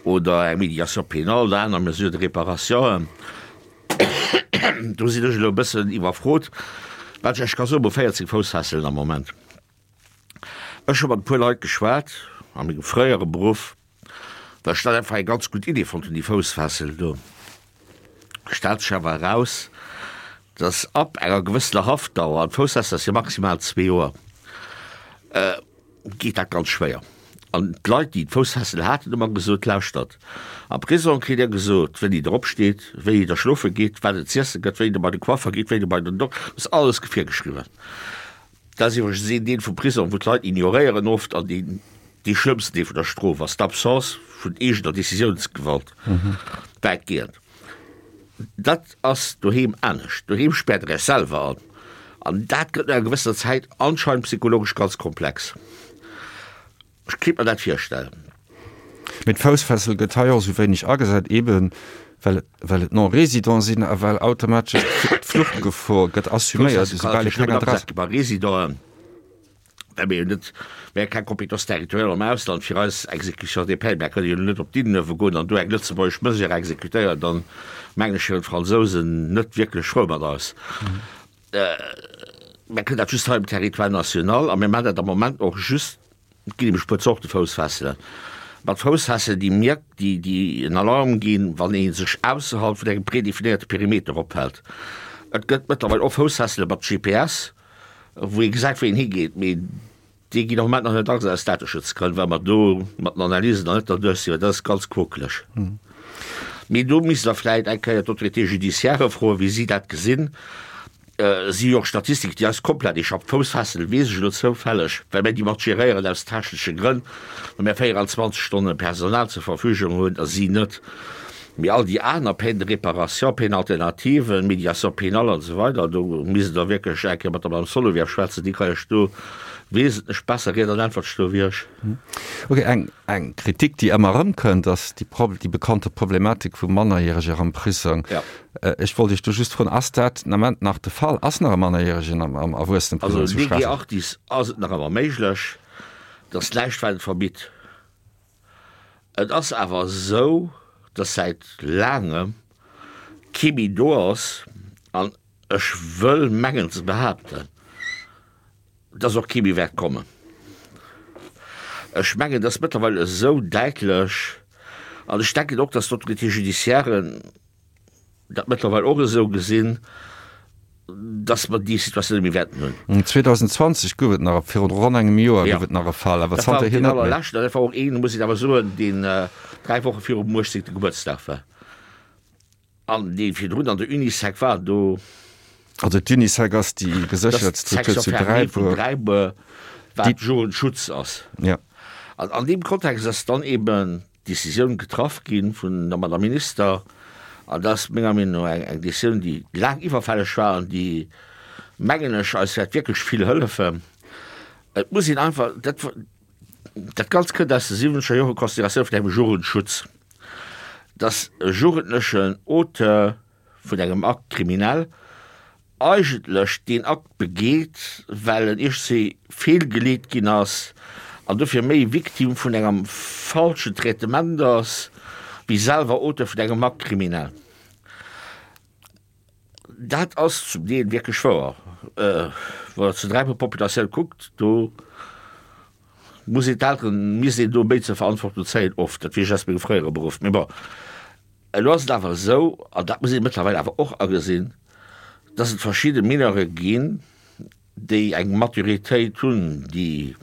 oder eng Médiation pénale oder aner Mesures de réparation. Do sinn ech elo e bëssen iwwerfrot, wat ech Iech ka soen, Mer hu 14 Foussfesselen am Moment. Ech hu mat e puer Leit geschwat a mengem fréiere Beruff, Well ech dat einfach eng ganz gutt Idee fonnt hunn, déi Foussfessel do. Stellt sech awer eraus, dass ab enger gewëssener Haftdauer, an d'Foussfessel ass jo maximal zwee Joer, geet dat ganz schwéier. An d'Leit, déi d'Foussfessel haten, hu mer gesot, Lauschtert, am Prisong kritt Dir gesot, wéini Der opsteet, wéini Der schlofe gitt, wat et z'iesse gëtt, wéini Der bei de Coiffer gitt, wéini Der bei den Dok-, dat ass alles virgeschriwwen. Dat ass iwwregens een Deel vum Prisong, wou d'Leit ignoréieren oft an deen dee schlëmmsten Deel vun der Strof ass, d'Absence vun eegener Decisiounsgewalt, wäitgehend. Dat ass doheem anescht. Doheem späert Der Iech selwer an an dat gëtt no enger gewëssener Zäit anscheinend psychologesch ganz komplex. Ech kéint mer dat virstellen. Mee d'Foussfessel gëtt hei och esou wéineg agesat, eben well well et Non-Résidents sinn a well automatesch d'Fluchtgefor gëtt assuméiert, esoubal ee keng Adress. Bei Résidenten, well mir jo net, mir hu keng Compétence territoriale am Ausland fir eis Exécution des peines, mir kënnen jo net op d'Innenuewe goen an do eng lëtzebuergesch Mesure exécutéieren, dann mengen ech, wieren d'Fransousen net wierklech frou mat eis. Mir kënnen dat just hei um Territoire national a mir maachen dat am Moment och just, et ginn nämlech e puer Zorte Foussfesselen, mat Foussfesselen, déi mierk, déi, déi en Alarm ginn, wann ee sech ausserhalb vun engem predefinéierte Perimeter ophält. Et gëtt mëttlerweil och Foussfessele mat GPS, wou ee gesäit, wou een higeet, mee déi ginn am Moment nach net agesat aus Dateschutzgrënn, well mer do mat den Analysen nach net derduerch sinn, well dat ass ganz quokeleg. Mee do misst Der vläicht eng Kéier d'Autorité judiciaire froen, wéi si dat gesinn. Si hu jo och Statistiken, déi eis komplett échappen. D'Foussfessel weess ech elo zoufälleg, well mir déi mat geréieren aus technesche Grënn, well mir 24 Stonne Personal zur Verfügung hunn a si net. Mee all déi aner Peine de réparation, Peine alternative, Médiation pénale an esou weider, do misst Der wierklech eng Kéier mat der Madame Solovieff schwätzen, déi ka Iech do wesentlech besser Ried an Äntwert stoe wéi ech. Ok, eng, eng Kritik, déi ëmmer erëmkënnt, ass déi, déi bekannte Problematik vu Mannerjäreger am Prisong. Ech wollt Iech do just froen, Ass dat den Ament nach de Fall? Ass nach e Mannerjäregen am, am Erwuesseneprisong zu Schraasseg? Also lege artis ass et nach ëmmer méiglech, dass näischt wat et verbitt. Et ass awer esou, dass säit laangem kee méi do ass, an ech wëll mengen ze behaapten, dass och kee méi wäert kommen. Ech mengen, et ass mëttlerweil esou däitlech, an ech denken och, dass d'Autorités judiciairen dat mëttlerweil och esou gesinn, dass mer déi Situatioun net méi wäerten hunn. 2020 gouf et nach, virun ronn engem Joer gouf et nach e Fall, awer zanterhier net méi. Dat war och deen allerleschten, dat war och een, muss een awer soen, deen 3 Woche virum 18. Gebuertsdag war an dee virdrun an der Unisec war. Do. Also d'Unisec ass déi geséchert Struktur zu Dräibuer. Dräibuer, wat Jugendschutz ass. Ja. An an deem Kontext ass dann eeben Décisioun getraff gi vun der Madame Minister, an dat ass menger Meenung no eng Décisioun, déi laang iwwerfälleg war an déi, mengen ech, eis wäert wierklech vill hëllefen. Et muss een einfach, dat, dat Ganzt kënnt aus de siwwenzeger Jore, Consideratioun vun engem Jugendschutz, dass e Jugendlechen Auteur vun engem Acte criminel eigentlech deen Akt begeet, well en iergendwéi feelgeleet ginn ass an dofir méi Victime vun engem falschen Traitement ass, wéi selwer Auteur vun engem Acte criminel. Dat ass zum Deel wierklech wouer. Wann Der zur Dräibuer-Populatioun kuckt, do muss een d'Elteren, misst een do méi zur Verantwortung zéien, oft. Dat weess ech aus mengem fréiere Beruff. Mee bon. Elo ass et awer esou, an dat muss ee mëttlerweil awer och agesinn, dass et verschidde Mineure ginn, déi eng Maturitéit hunn, déi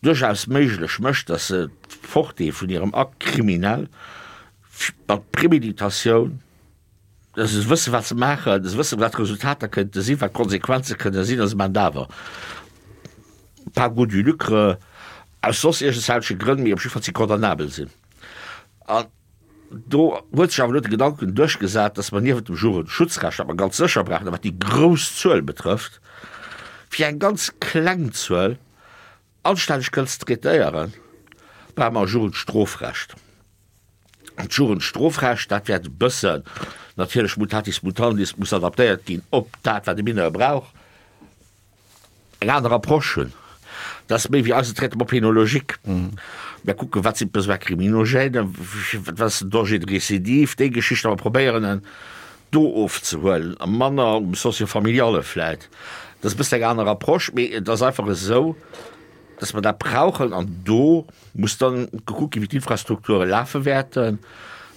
duerchaus méiglech mécht, dass se d'Portée vun hirem Acte criminel mat Préméditatioun, dass se wëssen, wat se maachen, dass se wëssen, wat d'Resultater kënnte sinn, wat d'Konsequenze kënne sinn, a se maachen et awer par goût du lucre, aus soss iergendwelche Grënn, mee op jiddwer Fall si condamnabel sinn. An do huet sech awer elo de Gedanken duerchgesat, dass mer niewent dem Jugendschutzrecht, wat mer ganz sécher brauchen, a wat déi grouss Zuel betrëfft, fir eng ganz kleng Zuel anstänneg kënnen ze traitéieren, brauche mer e Jugendstrofrecht. An d'Jugendstrofrecht, dat wäert e bëssen natierlech mutatis mutandis muss adaptéiert ginn op dat, wat e Mineur brauch. eng aner Approche hunn. Dat ass méi wéi eisen Traitement pénologique. Mir kucken, wat sinn d'Besoins criminogènes, wat ass den Danger de récidive, déi Geschichten, a mer probéieren en do ofzehuelen a manner um Socio-familiale vläit. Dat ass e bëssen eng aner Approche, mee et ass einfach esou, dass mer dat brauchen an do muss dann gekuckt ginn, wéi d'Infrastrukture lafe wäerten.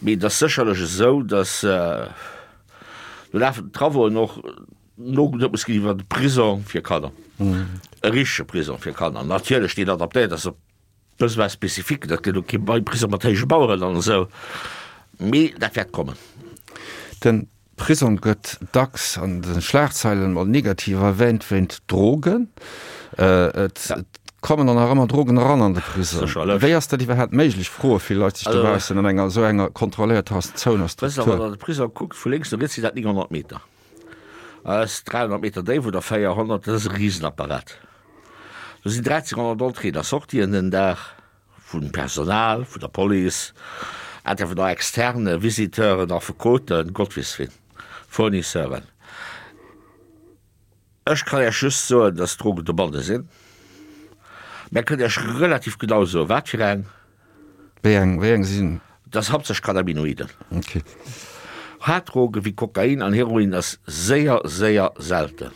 Mee et ass sécherlech esou, dass do lafen d'Travauxen och, Nogeduet muss ginn iwwer de Prisong fir Kanner, e richtege Prisong fir Kanner natierlech, deen adaptéiert ass op d'Besoins spécifiques. Dat gëtt elo kee Prisong mat héije Maueren an esou, mee dat wäert kommen. De Prisong gëtt dacks an de Schlagzeilen mol negativ erwähnt wéint Drogen. Et kommen dann nach ëmmer Drogen eran an de Prisong. Sécherlech. Wéi ass dat iwwerhaapt méiglech, froe vill Leit sech dobaussen, an enger esou enger kontrolléierter Zone a Wësst Der, Struktur? wann Der an de Prisong kuckt, vu lénks no riets sinn dat 900 Meter. Ass 300 Meter déif oder 400, dat ass e Risenapparat. Do sinn 1.300 Entréeën a Sortien den Dag, vum Personal, vun der Police, Intervenants externes, Visiteuren, Affekoten, Gott weess wien, Fournisseuren. Ech kann Iech just soen, dass Drogen dobanne sinn. Mä kënnt Iech relativ genau soen, wat fir eng. Wéi eng, wéi eng sinn? Dat ass haaptsächlech Cannabinoiden. Okay. Haarddroge wéi Kokain an Heroin ass séier, séier selten.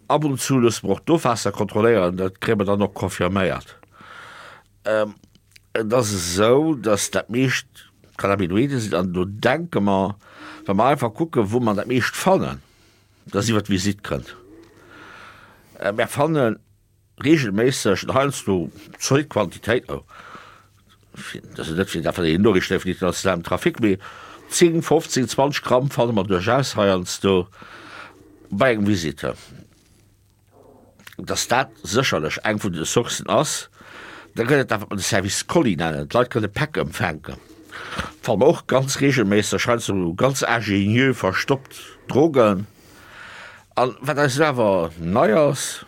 Ab und zu loosse mer och d'Ofwaasser kontrolléieren, dat kréie mer dann och confirméiert. Et ass esou, datt dat meescht Cannabinoide sinn an do denke mer, wa mer einfach kucken, wou mer dat meescht fannen, datt iwwer d'Visitt kënnt. Mer fannen reegelméisseg an heiansdo zolidd Quantitéit, oh. Dat ass net fir dat wat een Noriichten vun internationalem Trafic, mee 10, 15, 20 Gramm fanne mer duerchaus heiansdo bei engem Visiteur. Dass dat sécherlech eng vun de Sourcen ass. Da gëtt et dat, wat mer de Service Colis nennen. D'Leit kënne Päck empfänken. Fanne mer och ganz reegelméisseg heiansdo ganz ingénieux verstoppt Drogen. An wat eis elo awer nei ass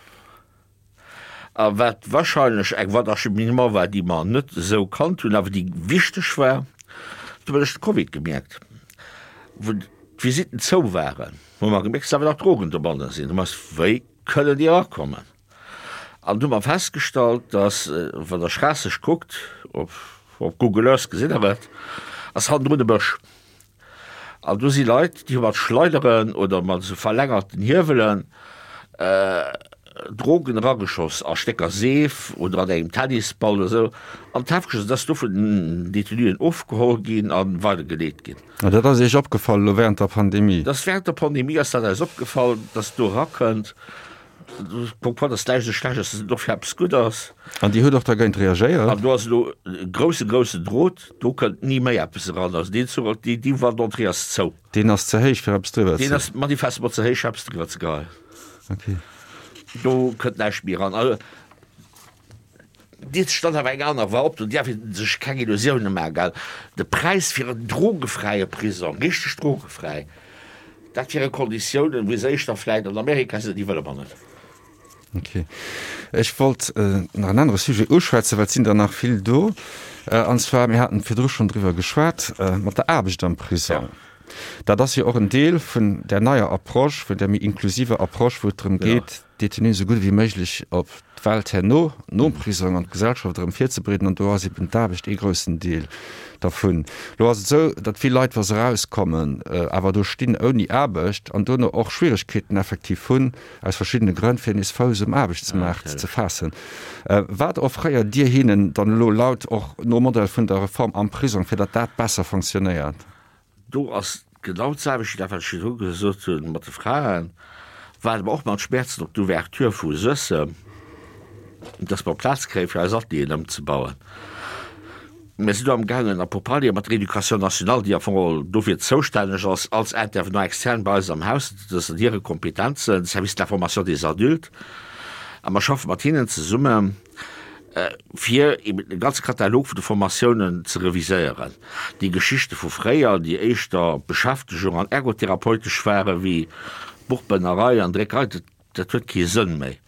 a wat wahrscheinlech eng Voie d'acheminement war, déi mer net esou kannt hunn, awer déi wichteg war, dat hu mer duerch de Covid gemierkt, wou d'Visitten zou waren, hu mer gemierkt, dass awer nach Drogen dobanne sinn. Hu mer eis, wéi kënnen déi erakommen? An du hu mer festgestallt, dass, wann Der Schraasseg kuckt, op Google Earth gesitt Der et, ass hannendrun e Bësch. An do si Leit, déi hu mat Schleideren oder mat esou verlängerten Hiewelen Drogen erageschoss a Stécker Seef oder an engem Tennisball oder esou. An d'Häftchen, dat ass do vun den Detenuen ofgeholl ginn a weidergeleet ginn. An dat ass Iech opgefall elo wärend der Pandemie? Dat ass wärend der Pandemie ass dat eis opgefall, dass do erakënnt. Pourquoi dass näischt esou schlecht ass, dass et och fir eppes gutt ass. An Dir hutt och dergéint reagéiert? An do ass elo e grousse, groussen Drot, do kënnt ni méi eppes eran. Also deen Zuch, déi, déi Voie d'entrée ass zou. Deen ass ze héich, fir eppes driwwer ze. Deen ass manifestement ze héich, fir eppes driwwer ze geheien. Ok. Do kënnt näischt méi eran. Also Dierf sech dann awer eng aner war op, do dierf ee sech keng Illusioune maachen, gell. De Präis fir en drogefräie Prisong, richteg drogefräi, dat wiere Konditiounen, wéi se éischter vläit an Amerika sinn, déi wëlle mer net. Ok. Ech wollt nach en anere Sujet uschwätzen, well et sinn der nach vill do. An zwar, mir haten virdru schonn driwwer geschwat, mat der Aarbecht am Prisong. Dat ass jo och en Deel vun där neier Approche, vun där méi inklusiver Approche, wou et drëm geet, d'Détenuen esou gutt ewéi méiglech op d'Welt herno, nom Prisong, an d'Gesellschaft erëm virzebereeden. An do ass eben d'Aarbecht ee groussen Deel dervun. Elo ass et esou, datt vill Leit, wa se erauskommen, awer do stinn ouni Aarbecht an dono och Schwieregkeeten effektiv hunn, aus verschiddene Grënn, fir nees Fouss um Aarbechtsmaart ze faassen. Wat offréiert Dir hinnen dann elo laut och nom Modell vun der Reform am Prisong, fir datt dat besser fonctionnéiert? Do ass genau d'selwecht wéi dat, wat ech virdru gesot hunn mat de Fraen, waarde mer och mat Schmäerzen op d'Ouverture vu Suessem, dass mer Plaz kréien, fir eis Atelieren ëmzebauen. Mir sinn do amgaangen a Pourparlere mat der Éducation nationale, déi am Fong dofir zoustänneg ass als Intervenant externe bei eis am Haus, dat ass an hire Kompetenzen, Service de la formation des adultes, a mer schaffe mat hinnen zesummen, fir eben de ganze Katalog vun de Formatiounen ze reviséieren. Déi Geschichte vu fréier, déi éischter Beschäftegung an ergotherapeutesch ware wéi Buchbënnerei an Dréckerei, dat, dat huet kee Sënn méi.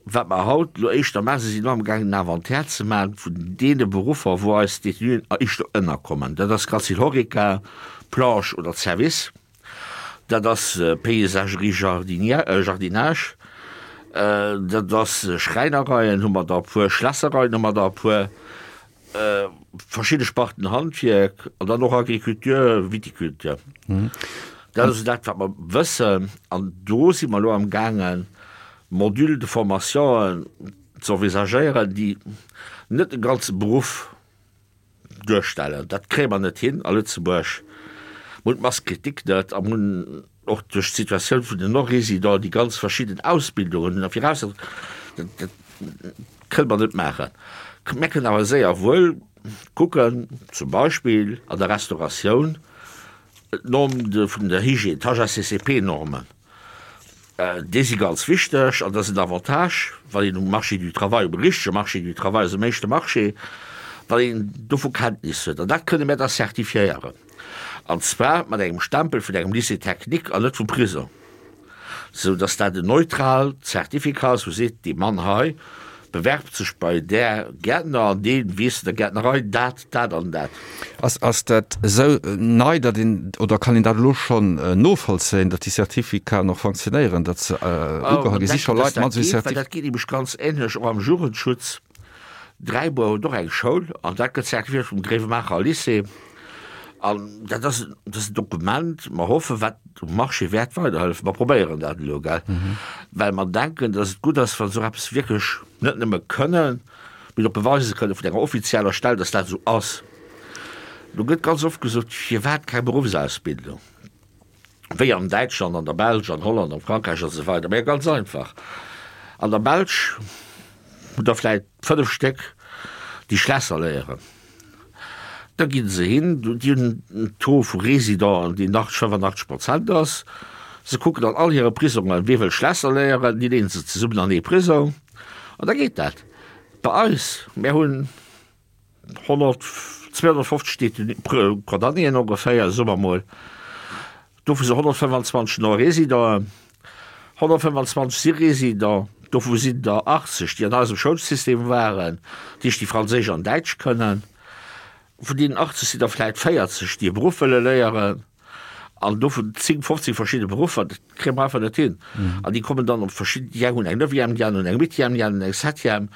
Wat mer haut elo éischter maachen, si sinn elo amgaangen en Inventaire ze maachen vun deene Beruffer, wou eis Détenuen éischter ënnerkommen. Dat ass ganz vill Horeca, Planche oder Service. Dat ass Paysagerie, Jardinage, dat ass Schräinereien hu mer der e puer, Schlässereien hu mer der e puer, verschidde Sparten Handwierk an dann och Agriculture, Viticulture. Dat ass esou dat, wat mer wëssen. An do si mer elo amgaangen, Modules de formationen ze envisagéieren, déi net de ganze Beruff duerstellen. Dat kréie mer net hin a Lëtzebuerg. Mer hunn d'Masse critique net a mer hunn och duerch d'Situatioun vun den Non-Résidents déi ganz verschidden Ausbildungen hunn a viraussetzen, dat, dat kënne mer net maachen. Mer kënnen awer séier wuel kucken, zum Beispill an der Restauratioun, d'Norm vun der Hygiène, d'HACCP-Normen. Déi si ganz wichteg an dat ass en Avantage, wann een um Marché du travail, um richtege Marché du travail, also um éischte Marché, wann een dovu Kenntnis huet. An dat kënne mir da certifiéieren, an zwar mat engem Stempel vun engem Lycée technique an net vum Prisong, sou dass dat en neutraalt Certificat ass, wou seet, dee Mann hei bewerbt sech bei där Gäertner an dee weess an der Gäertnerei dat, dat an dat. Ass, ass dat esou nei, datt een, oder kann een dat elo schonn novollzéien, datt déi Certificaten och fonctionnéieren, datt se ugeholl ginn? Si scho Leit mat esou Certificaten? Dat geet nämlech ganz änlech och am Jugendschutz. Dräibuer huet och eng Schoul an dat gëtt certifiéiert vum Gréiwemaacher Lycée. An dat ass, dat ass en Dokument, mer hoffen, wat um Marché wäert weiderhëllefen. Mer probéieren dat elo, gell, well mer denken, datt et gutt ass, wa se esou eppes wierklech net nëmme kënnen, mee och beweise kënnen vun enger offizieller Stell, datt dat esou ass. Do gëtt ganz oft gesot, Firwat keng Beruffsausbildung, wéi an Däitschland, an der Belsch, an Holland, an Frankräich a sou weider? Mä ganz einfach, An der Belsch hutt Der vläicht 5 Stéck. Déi Schlässer léieren. Da gi se hin, déi hunn en Taux vu Residenten, deen nach 85 Prozent ass. Se kucken an all hire Prisongen, wie wëll Schlässer léieren, déi leeën se zesummen an ee Prisong an da geet dat. Bei eis, mär hunn 100, 250 Détenu, Condamnéen ongeféier, soe mer mol, dovu si 125 Non-Résidenten, 125 si Résidents, dovu sinn der 80, déi an eisem Schoulsystem waren, dat heescht déi Franséisch an Däitsch kënnen. Vun deenen 80 sinn der vläit 40, déi e Beruff wëlle léieren, an dovun 10, 15 verschidde Beruffer, dat kréie mer einfach net hin. An déi kommen dann op verschidden, déi eng hunn eng Neuvième, déi aner hunn eng Huitième, déi aner hunn eng Septième.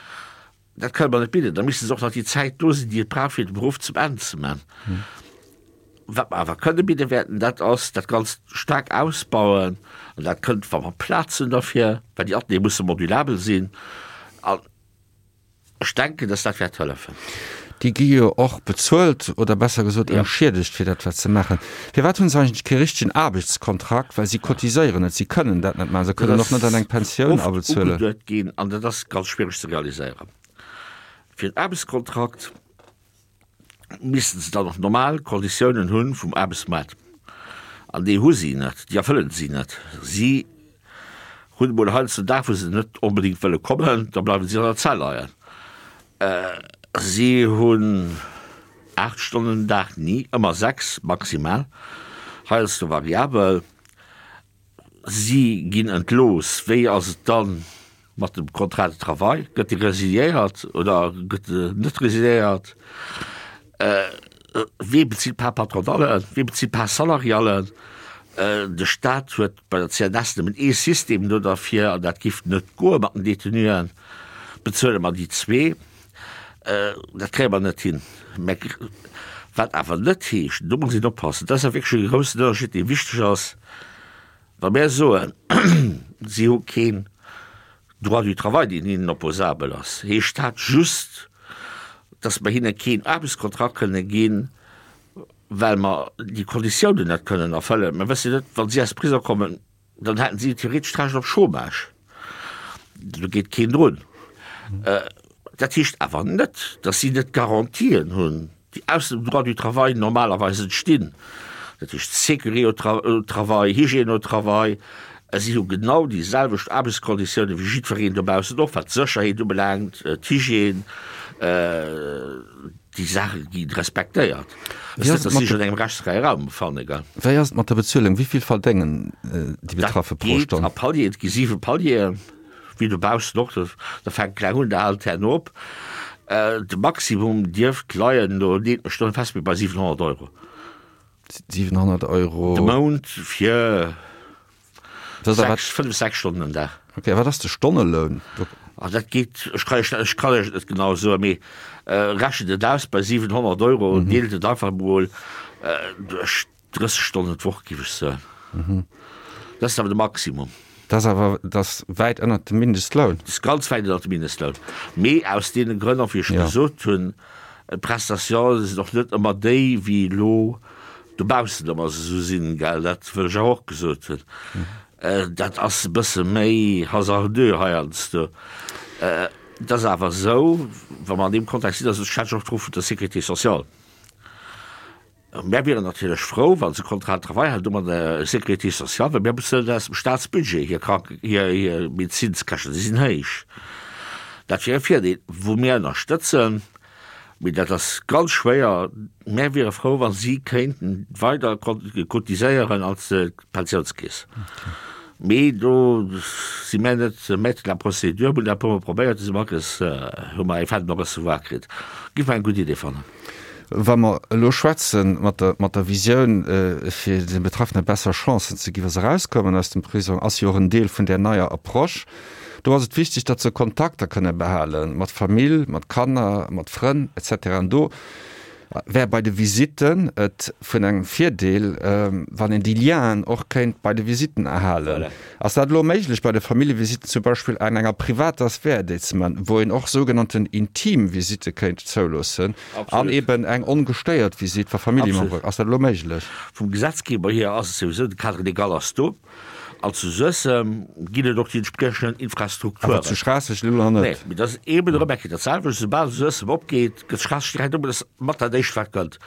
Dat kënne mer net bidden. Da misste se och nach déi Zäit do sinn, déi et brauch, fir de Beruff zum Enn ze man. Wat mer awer kënne bidde wäerten, dat ass dat Ganzt staark ausbauen. An dat kënnt, wa mer Plaz hunn derfir, well déi Ateliere musse modulabel sinn. An ech denken, dass dat wäert hëllefen. Déi gi jo och bezuelt, oder besser gesot entschiedegt, fir dat wat se maachen. Firwat hunn se eigentlech kee richtegen Aarbechtskontrakt? Well si cotiséieren net, si kënnen dat net maachen, se kënnen och net an eng Pensioun abezuelen. Dat ass oft ugeduet ginn an dat ass ganz schwiereg ze realiséieren. Fir en Aarbechtskontrakt missten se dann och normal Konditiounen hu vum Aarbechtsmaart. An déi hu si net, déi erfëllen si net. Si hunn emol heiansdo en Dag, wou se net onbedéngt wëlle kommen, da bleiwe si an der Zell leien. Si hunn 8 Stonnen den Dag, ni, ëmmer 6 maximal, heiansdo variabel. Si ginn entlooss. Wéi ass et dann mat dem Contrat de travail? Gëtt dee resiliéiert oder gëtt en net resiliéiert? Wee bezilt d'Part patronale? Wee bezilt d'Part salariale? De Staat huet bei der CNS nëmmen ee System do derfir an dat giff net goe mat den Detenuen. Bezuele mer déi zwee? Dat kréie mer net hin. Mä wat awer net heescht, do muss een oppassen, dat ass awer wierklech e groussen Ënnerscheed, dee wichteg ass, wa mär soen, si hu keen Droit du travail, deen hinnen opposabel ass, heescht dat just, datt mer hinne keen Aarbechtskontrakt kënne ginn, well mer déi Konditiounen net kënnen erfëllen. Mer wësse net, wa si aus Prisong kommen, dann hätten si theoretesch d'Recht op Chômage. Do geet keen drun. Dat heescht awer net, datt si net d'Garantien hunn, déi aus dem Droit du travail normalerweis entstinn. Dat heescht Sécurité au travail, Hygiène au travail. Si hu genau déi selwecht Aarbechtskonditiounen wéi jiddwereen dobaussen och, wat d'Sécherheet ubelaangt, d'Hygiène. Déi Saache gi respektéiert. Wéi ass et mat der, engem rechtsfräie Raum befanne, gell? Wéi ass et mat der Bezuelung? Wéi vill verdéngen déi Betraffe pro Stonn? Dat geet a Palieren. Et gi siwe Palieren, wéi dobaussen och. Da fänkt kleng un, da hält herno op. De Maximum dierft leien, do leet mech net fest, mee bei 700 Euro. 700 Euro. De Mount fir 6, 5, 6 Stonnen den Dag. Ok, a wat ass de Stonneloun? Ah, dat geet, ech kann iech, ech kann iech et net genau soen, mee rechent et aus bei 700 Euro, deelt et einfach emol duerch 30 Stonnen d'Woch, géif ech soen. Dat ass awer de Maximum. Dat ass awer, dat ass wäit ënnert dem Mindestloun. Dat ass ganz wäit ënnert dem Mindestloun. Mee aus deene Grënn och, wéi ech gesot hunn, d'Prestatiounen sinn och net ëmmer déi, wéi elo dobaussen ëmmer se esou sinn, gell, dat wëll ech awer och gesot hunn. Dat ass e bësse méi hasardeux heiansdo. Et ass awer esou, wa mer an deem Kontext sinn, also ech schwätzen och do vun der Sécurité sociale, Mär wieren natierlech frou, wa se Contrat de travail hätten mat der Sécurité sociale, well mär bezuelen aus dem Staatsbudget hir Kranken, hir Medezinskäschten, déi sinn héich. Dat wier e Virdeel, wou mir ënnerstëtzen, mee dat ass ganz schwéier. Mär wiere frou, wa si kéinten weider cotiséieren als d'Pensiounskeess. Mee do si mär net maître de la procédure. Mir hunn dat e puermol probéiert, du si mer akes, hu mer eng Fin de non-recevoir kritt. Giff mer eng gutt Idee fannen. Wa mer elo schwätze mat der, mat der Visioun, fir de Betraffene besser Chancen ze ginn, wa se erauskommen aus dem Prisong, ass jo och en Deel vun där neier Approche. Do ass et wichteg, datt se Kontakter kënne behale mat Famill, mat Kanner, mat Frënn et cetera. An do wär bei de Visitten et vun engem Virdeel, wann een déi Lienen och kéint bei de Visitten erhalen. Ass dat elo méiglech bei de Familljevisitten zum Beispill an enger privater Sphär déi ze man, wou een och sougenannten intim Visitte kéint zouloossen an eben eng ongestéiert Visitt wa Familljemembere? Ass dat elo méiglech? Vum Gesetzgeber hier ass et souwisou, de Cadre légal ass do. An zu Suessem ginn et och déi entspriechenden Infrastrukturen. Awer zu Schraasseg elo nach net. Nee, mee dat ass eeben erëm eng Kéier dat selwecht. Soubal Suessem opgeet, gëtt Schraasseg direkt op. Dat ass mat dat Éischt, wat kënnt.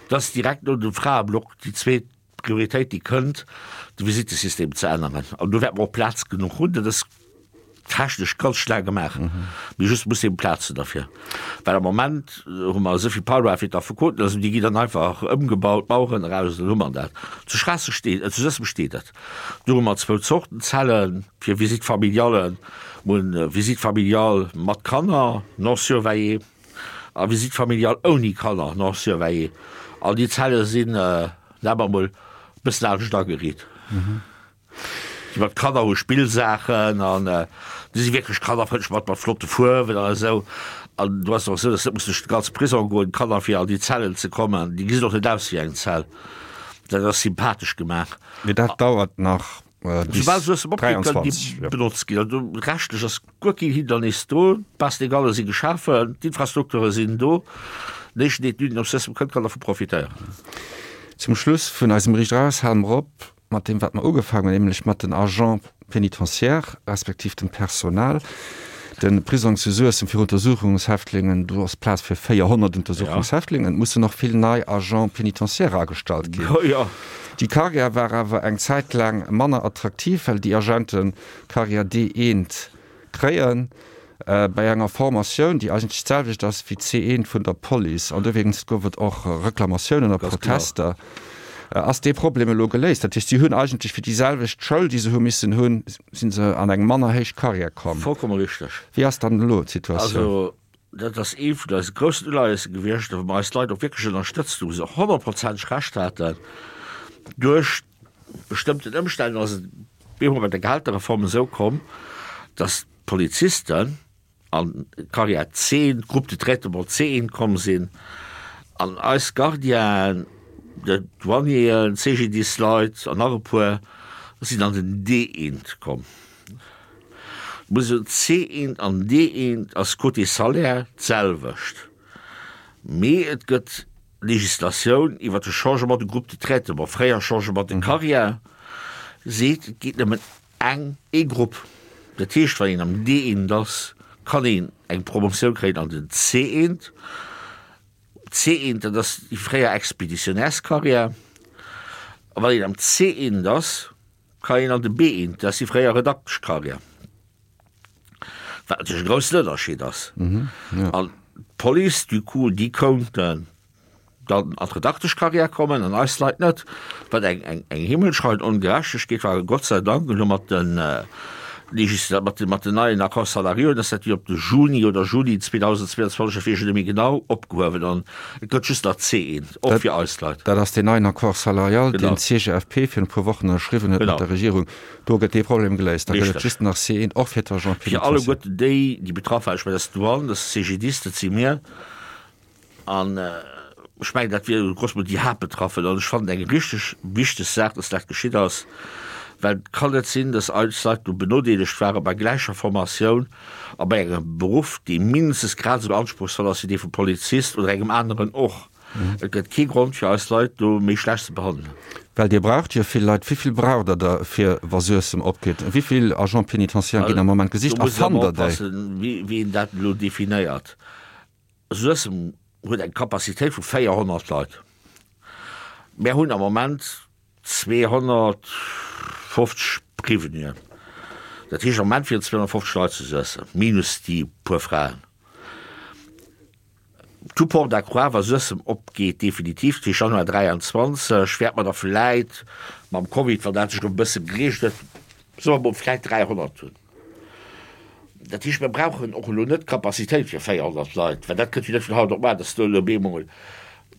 Dat ass direkt no dem Fraeblock déi zweet Prioritéit, déi kënnt, de Visittesystem ze änneren. An do wäerte mer och Plaz genuch hunn. Dat ass technesch ganz schnell gemaach, mee just muss eben Plaz hunn derfir, well am Moment hu mer esou vill Parloire fir d'Affekoten, also déi ginn dann einfach ëmgebaut, d'Maueren eraus, dann hu mer dat. Zu Schraasseg steet, zu Suessem steet et, do hu mer zwou Zorten Zellen fir Visite familiale, mer hunn Visite familiale mat Kanner, non surveillée, a Visite familiale ouni Kanner, non surveillée, an déi Zelle sinn, nennen mer emol, e bëssen anescht ageriit. Déi mat Kanner hu Spillsaachen an déi si wierklech kannerfrëndlech mat mat flotte Fuerwen an esou. An do ass et och esou, dass net muss duerch de ganze Prisong goen, d'Kanner fir an déi Zellen ze kommen. Déi gesinn och net aus wéi eng Zell. Dat ass sympathesch gemaach. Mee dat dauert nach bis Soubal se aus dem Opgeet, kënnen déi 23, jo. benotzt ginn. Also rechtlech ass guer keen Hindernis do. D'Bases légales si geschafen, d'Infrastrukture sinn do. Den éischten, deen d'Union Suessem kënnt, kann dervu profitéieren. Zum Schluss vun eisem Riicht Eraus hale mer op mat deem, wat mer ugefaangen hunn, nämlech mat den Agents pénitentiaires respektiv dem Personal. De Prisong zu Suessem fir Untersuchungshäftlingen, do ass Plaz fir 400 Untersuchungshäftlingen. Et mussen och vill nei Agents pénitentiaires agestallt ginn. Déi Carrière war awer eng Zäit laang manner attraktiv, well déi Agenten d'Carrière D1 kréien bei enger Formatioun, déi eigentlech d'selwecht ass wéi d'C1 vun der Police. An dowéinst gouf et och Reklamatiounen a Protester. Ass dee Problem elo geléist? Dat heescht, si hunn eigentlech fir déi selwecht Schoul, déi se hu missen hunn, si se an eng manner héich Karriär komm. Vollkomme richteg. Wéi ass dann elo d'Situatioun? Also, dat ass ee vun eise groussen Uleiese gewiescht, wou mer eis Leit och wierklech ënnerstëtzt hunn, wou se honnertprozenteg Recht haten. Duerch bestëmmten Ëmstänn ass et bemol bei der Gehälterreform esou komm, datt d'Polizisten an d'Carrière C, d'Groupe de traitement C1 komm sinn an eis Gardienen, d'Douanieren, d'CGDIS-Leit an nach e puer sinn an den D1 komm. Muss een soen, C1 an D1 ass côté Salaire d'selwecht, mee et gëtt Legislatioun iwwert de Changement de groupe de traitement, fréier Changement de carrière, seet, et geet nëmmen eng, ee Grupp. Dat heescht, wann een am D1 ass, kann een eng Promotioun kréien an den C1. C1, dat ass déi fréier Expéditionnairescarrière. A wann een am C1 ass, kann een an de B1, dat ass déi fréier Redakteschcarrière. Wat natierlech e groussen Ënnerscheed ass. An d'Police, du coup, déi kounten dann an d'Redakteschcarrière kommen an eis Leit net, wat eng, eng, eng himmelschreiend Ongerechtegkeet war. Gott sei Dank elo mat de Legisla-, mat de, mat den neien Accords salariaux ass dat jo op de Juni oder Juli 2022, dat weess ech net méi genau, opgehuewen an et gëtt just nach C1, och fir eis Leit. Dat ass deen neien Accord salarial, deen d'CGFP virun e puer Wochen ënnerschriwwen huet mat der Regierung. Do gëtt dee Problem geléist. Da gëtt et just nach C1, och fir d'Agents Fir pénitentiaires. alleguerten déi, déi betraff waren, ech mengen, dat ass d'Douane, dat ass de CGDIS, dat si mir. An ech mengen, dat wier grosso modo déi Haaptbetraffen. An ech fannen eng richteg wichteg Saach, dass dat geschitt ass, well et kann net sinn, dass eis Leit do benodeelegt ware bei gläicher Formatioun a bei engem Beruff, dee mindestens grad esou anspruchsvoll ass wéi dee vum Polizist oder engem aneren och. Et gëtt kee Grond fir eis Leit do méi schlecht ze behandelen. Well Dir braucht jo vill Leit. Wéi vill braucht Der der fir wa Suessem opgeet? Wéi vill Agents pénitentiaires ginn am Moment gesicht Do a muss een fannt awer Der déi? oppassen, wéi een dat elo definéiert. Suessem huet eng Capacitéit vu 400 Leit. Mär hunn am Moment 250 Prévenuen. Dat heescht am Moment wieren 250 Leit zu Suessem, minus déi puer Fraen. Tout porte à croire, wa Suessem opgeet definitiv, dat heescht Januar 23, wäerte mer da vläit mam Covid, wann dat sech erëm e bësse gereegelt huet, soe mer mol, vläit 300 hunn. Dat heescht, mir brauchen och elo net d'Capacitéit fir 400 Leit, well dat kënnt jo net vun haut op mar, dass do elo bemol.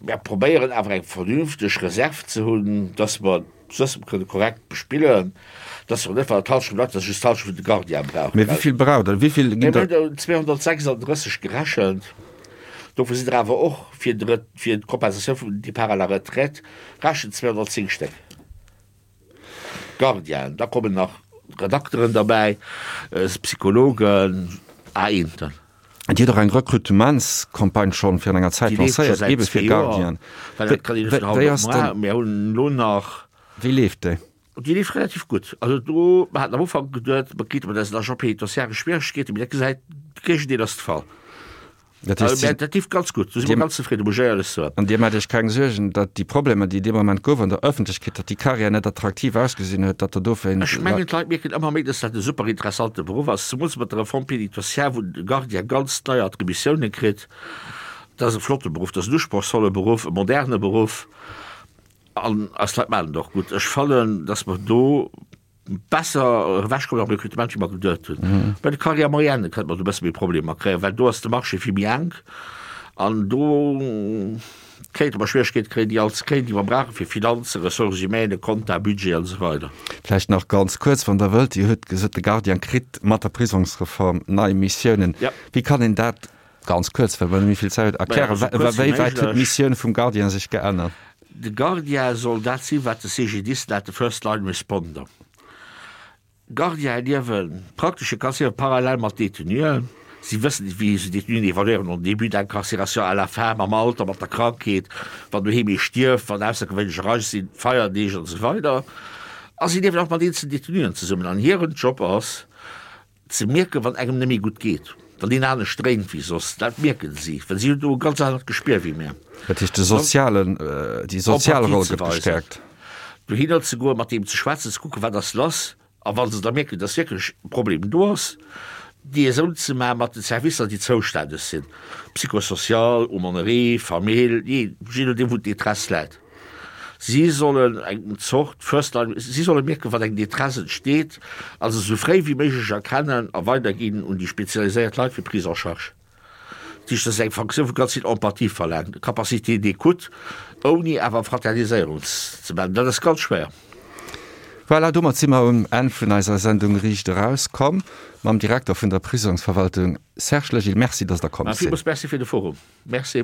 Mir probéieren awer eng vernünfteg Reserv ze hunn, dass mer Suessem kënne korrekt bespillen, dass mer net, wann et d'Hallschent bleift, dass just d'Hallschent vun de Gardiene brauchen. Mee wéi vill braucht Der? Wéi vill ginn der? Mir hunn 236 gerechent. Dovun sinn der awer och fir de, fir d'Kompensatioun vum Départ à la retraite rechent 210 Stéck Gardienen. Da kommen nach Redakteren derbäi, Psychologen, Aenten. Dir hutt och eng Rekrutementscampagne schonn virun enger Zäit Déi leeft scho lancéiert, säit eebe fir zwee Joer, Gardienen. well dat kann een net vun haut Wéi op ass muar. dann, Mir hunn elo nach. wéi leeft déi? Déi leeft relativ gutt. Also do, mer haten am Ufank geduet, mer kriite mat eisen Agents pénitentiaires Schwieregkeeten, mee dat gesäit, de Géigendeel ass de Fall. Dat heescht, Mä dat leeft ganz gutt, do si mer ganz zefridden, muss ech éierlech soen. An Dir maacht Iech keng Suergen, datt déi Problemer, déi dee Moment gouf an der Ëffentlechkeet, datt déi Carrière net attraktiv ausgesinn huet, datt Der dofir. Ech mengen, d'Leit mierken ëmmer méi, datt dat e super interessante Beruff ass, zemools mat der Réforme pénitentiaire, wou de Gardien ganz nei Attributiounen kritt. Dat ass e flotte Beruff, dat ass en usprochsvolle Beruff, e moderne Beruff. An eis Leit maachen et och gutt. Ech fannen, dass mer do besser ewechkommen am Rekrutement, wéi mer geduet hunn. Bei de Carrières moyennes kënnte mer do e bësse méi Problemer kréien, well do ass de Marché vill méi enk an do kéinte mer Schwieregkeete kréien, déi all ze kréien, déi mer brauchen fir Finanzen, Ressources humaines, Compta, Budget an esou weider. Vläicht nach ganz kuerz, wann Der wëllt, Dir hutt gesot, de Gardien kritt mat der Prisongsreform nei Missiounen. Wéi kann een dat Ganz kuerz, well mer net méi vill Zäit hunn, erklären, wéi wäit huet d'Missioun vum Gardien sech geännert? De Gardien soll dat sinn, wat de CGDIS nennt, de First Line Responder. Gardiene liewe praktesch, e kann soen, parallel mat Détenuen. Si wëssen, wéi se Détenuen evaluéieren, en début d'incarcération, à la fin, mam Alter, mat der Krankheet, wann doheem ee stierft, wann aussergewéinlech Ereignesser sinn, Feierdeeg an esou weider. A si liewen och mat eenzelen Détenuen zesummen. An hiren Job ass, Ze mierken, wann engem net méi gutt geet, wann een anescht dréint wéi soss, dat mierken si, well si hunn do e ganz anert Gespier wéi mir. Dat heescht, de sozialen, déi sozial Roll gëtt gestäerkt. Dohinner ze goen, mat deem ze schwätzen, ze kucken, wat ass lass, a wa se da mierken, dass wierklech e Problem do ass, Liaison ze maache mat den Servicer, déi zoustänneg sinn, psychosocial, Aumônerie, Famill, jee nodeem wou d'Détresse läit. Si sollen eng Zort First Line, si solle mierken, wann eng Détresse entsteet, a se esou fréi wéi méiglech erkennen a weiderginn un déi spezialiséiert Leit fir Prise en charge. Dat heescht, dat ass eng Funktioun, wou ganz vill Empathie verlaangt, Capacité d'écoute, ouni awer Fraterniséierung ze maachen. Dat ass ganz schwéier. Voilà, domat si mer um Enn vun eiser Sendung Riicht Eraus komm mam Direkter vun der Prisongsverwaltung Serge Legil. Merci, dass Der komm sidd. Villmools Merci fir de Forum. Merci.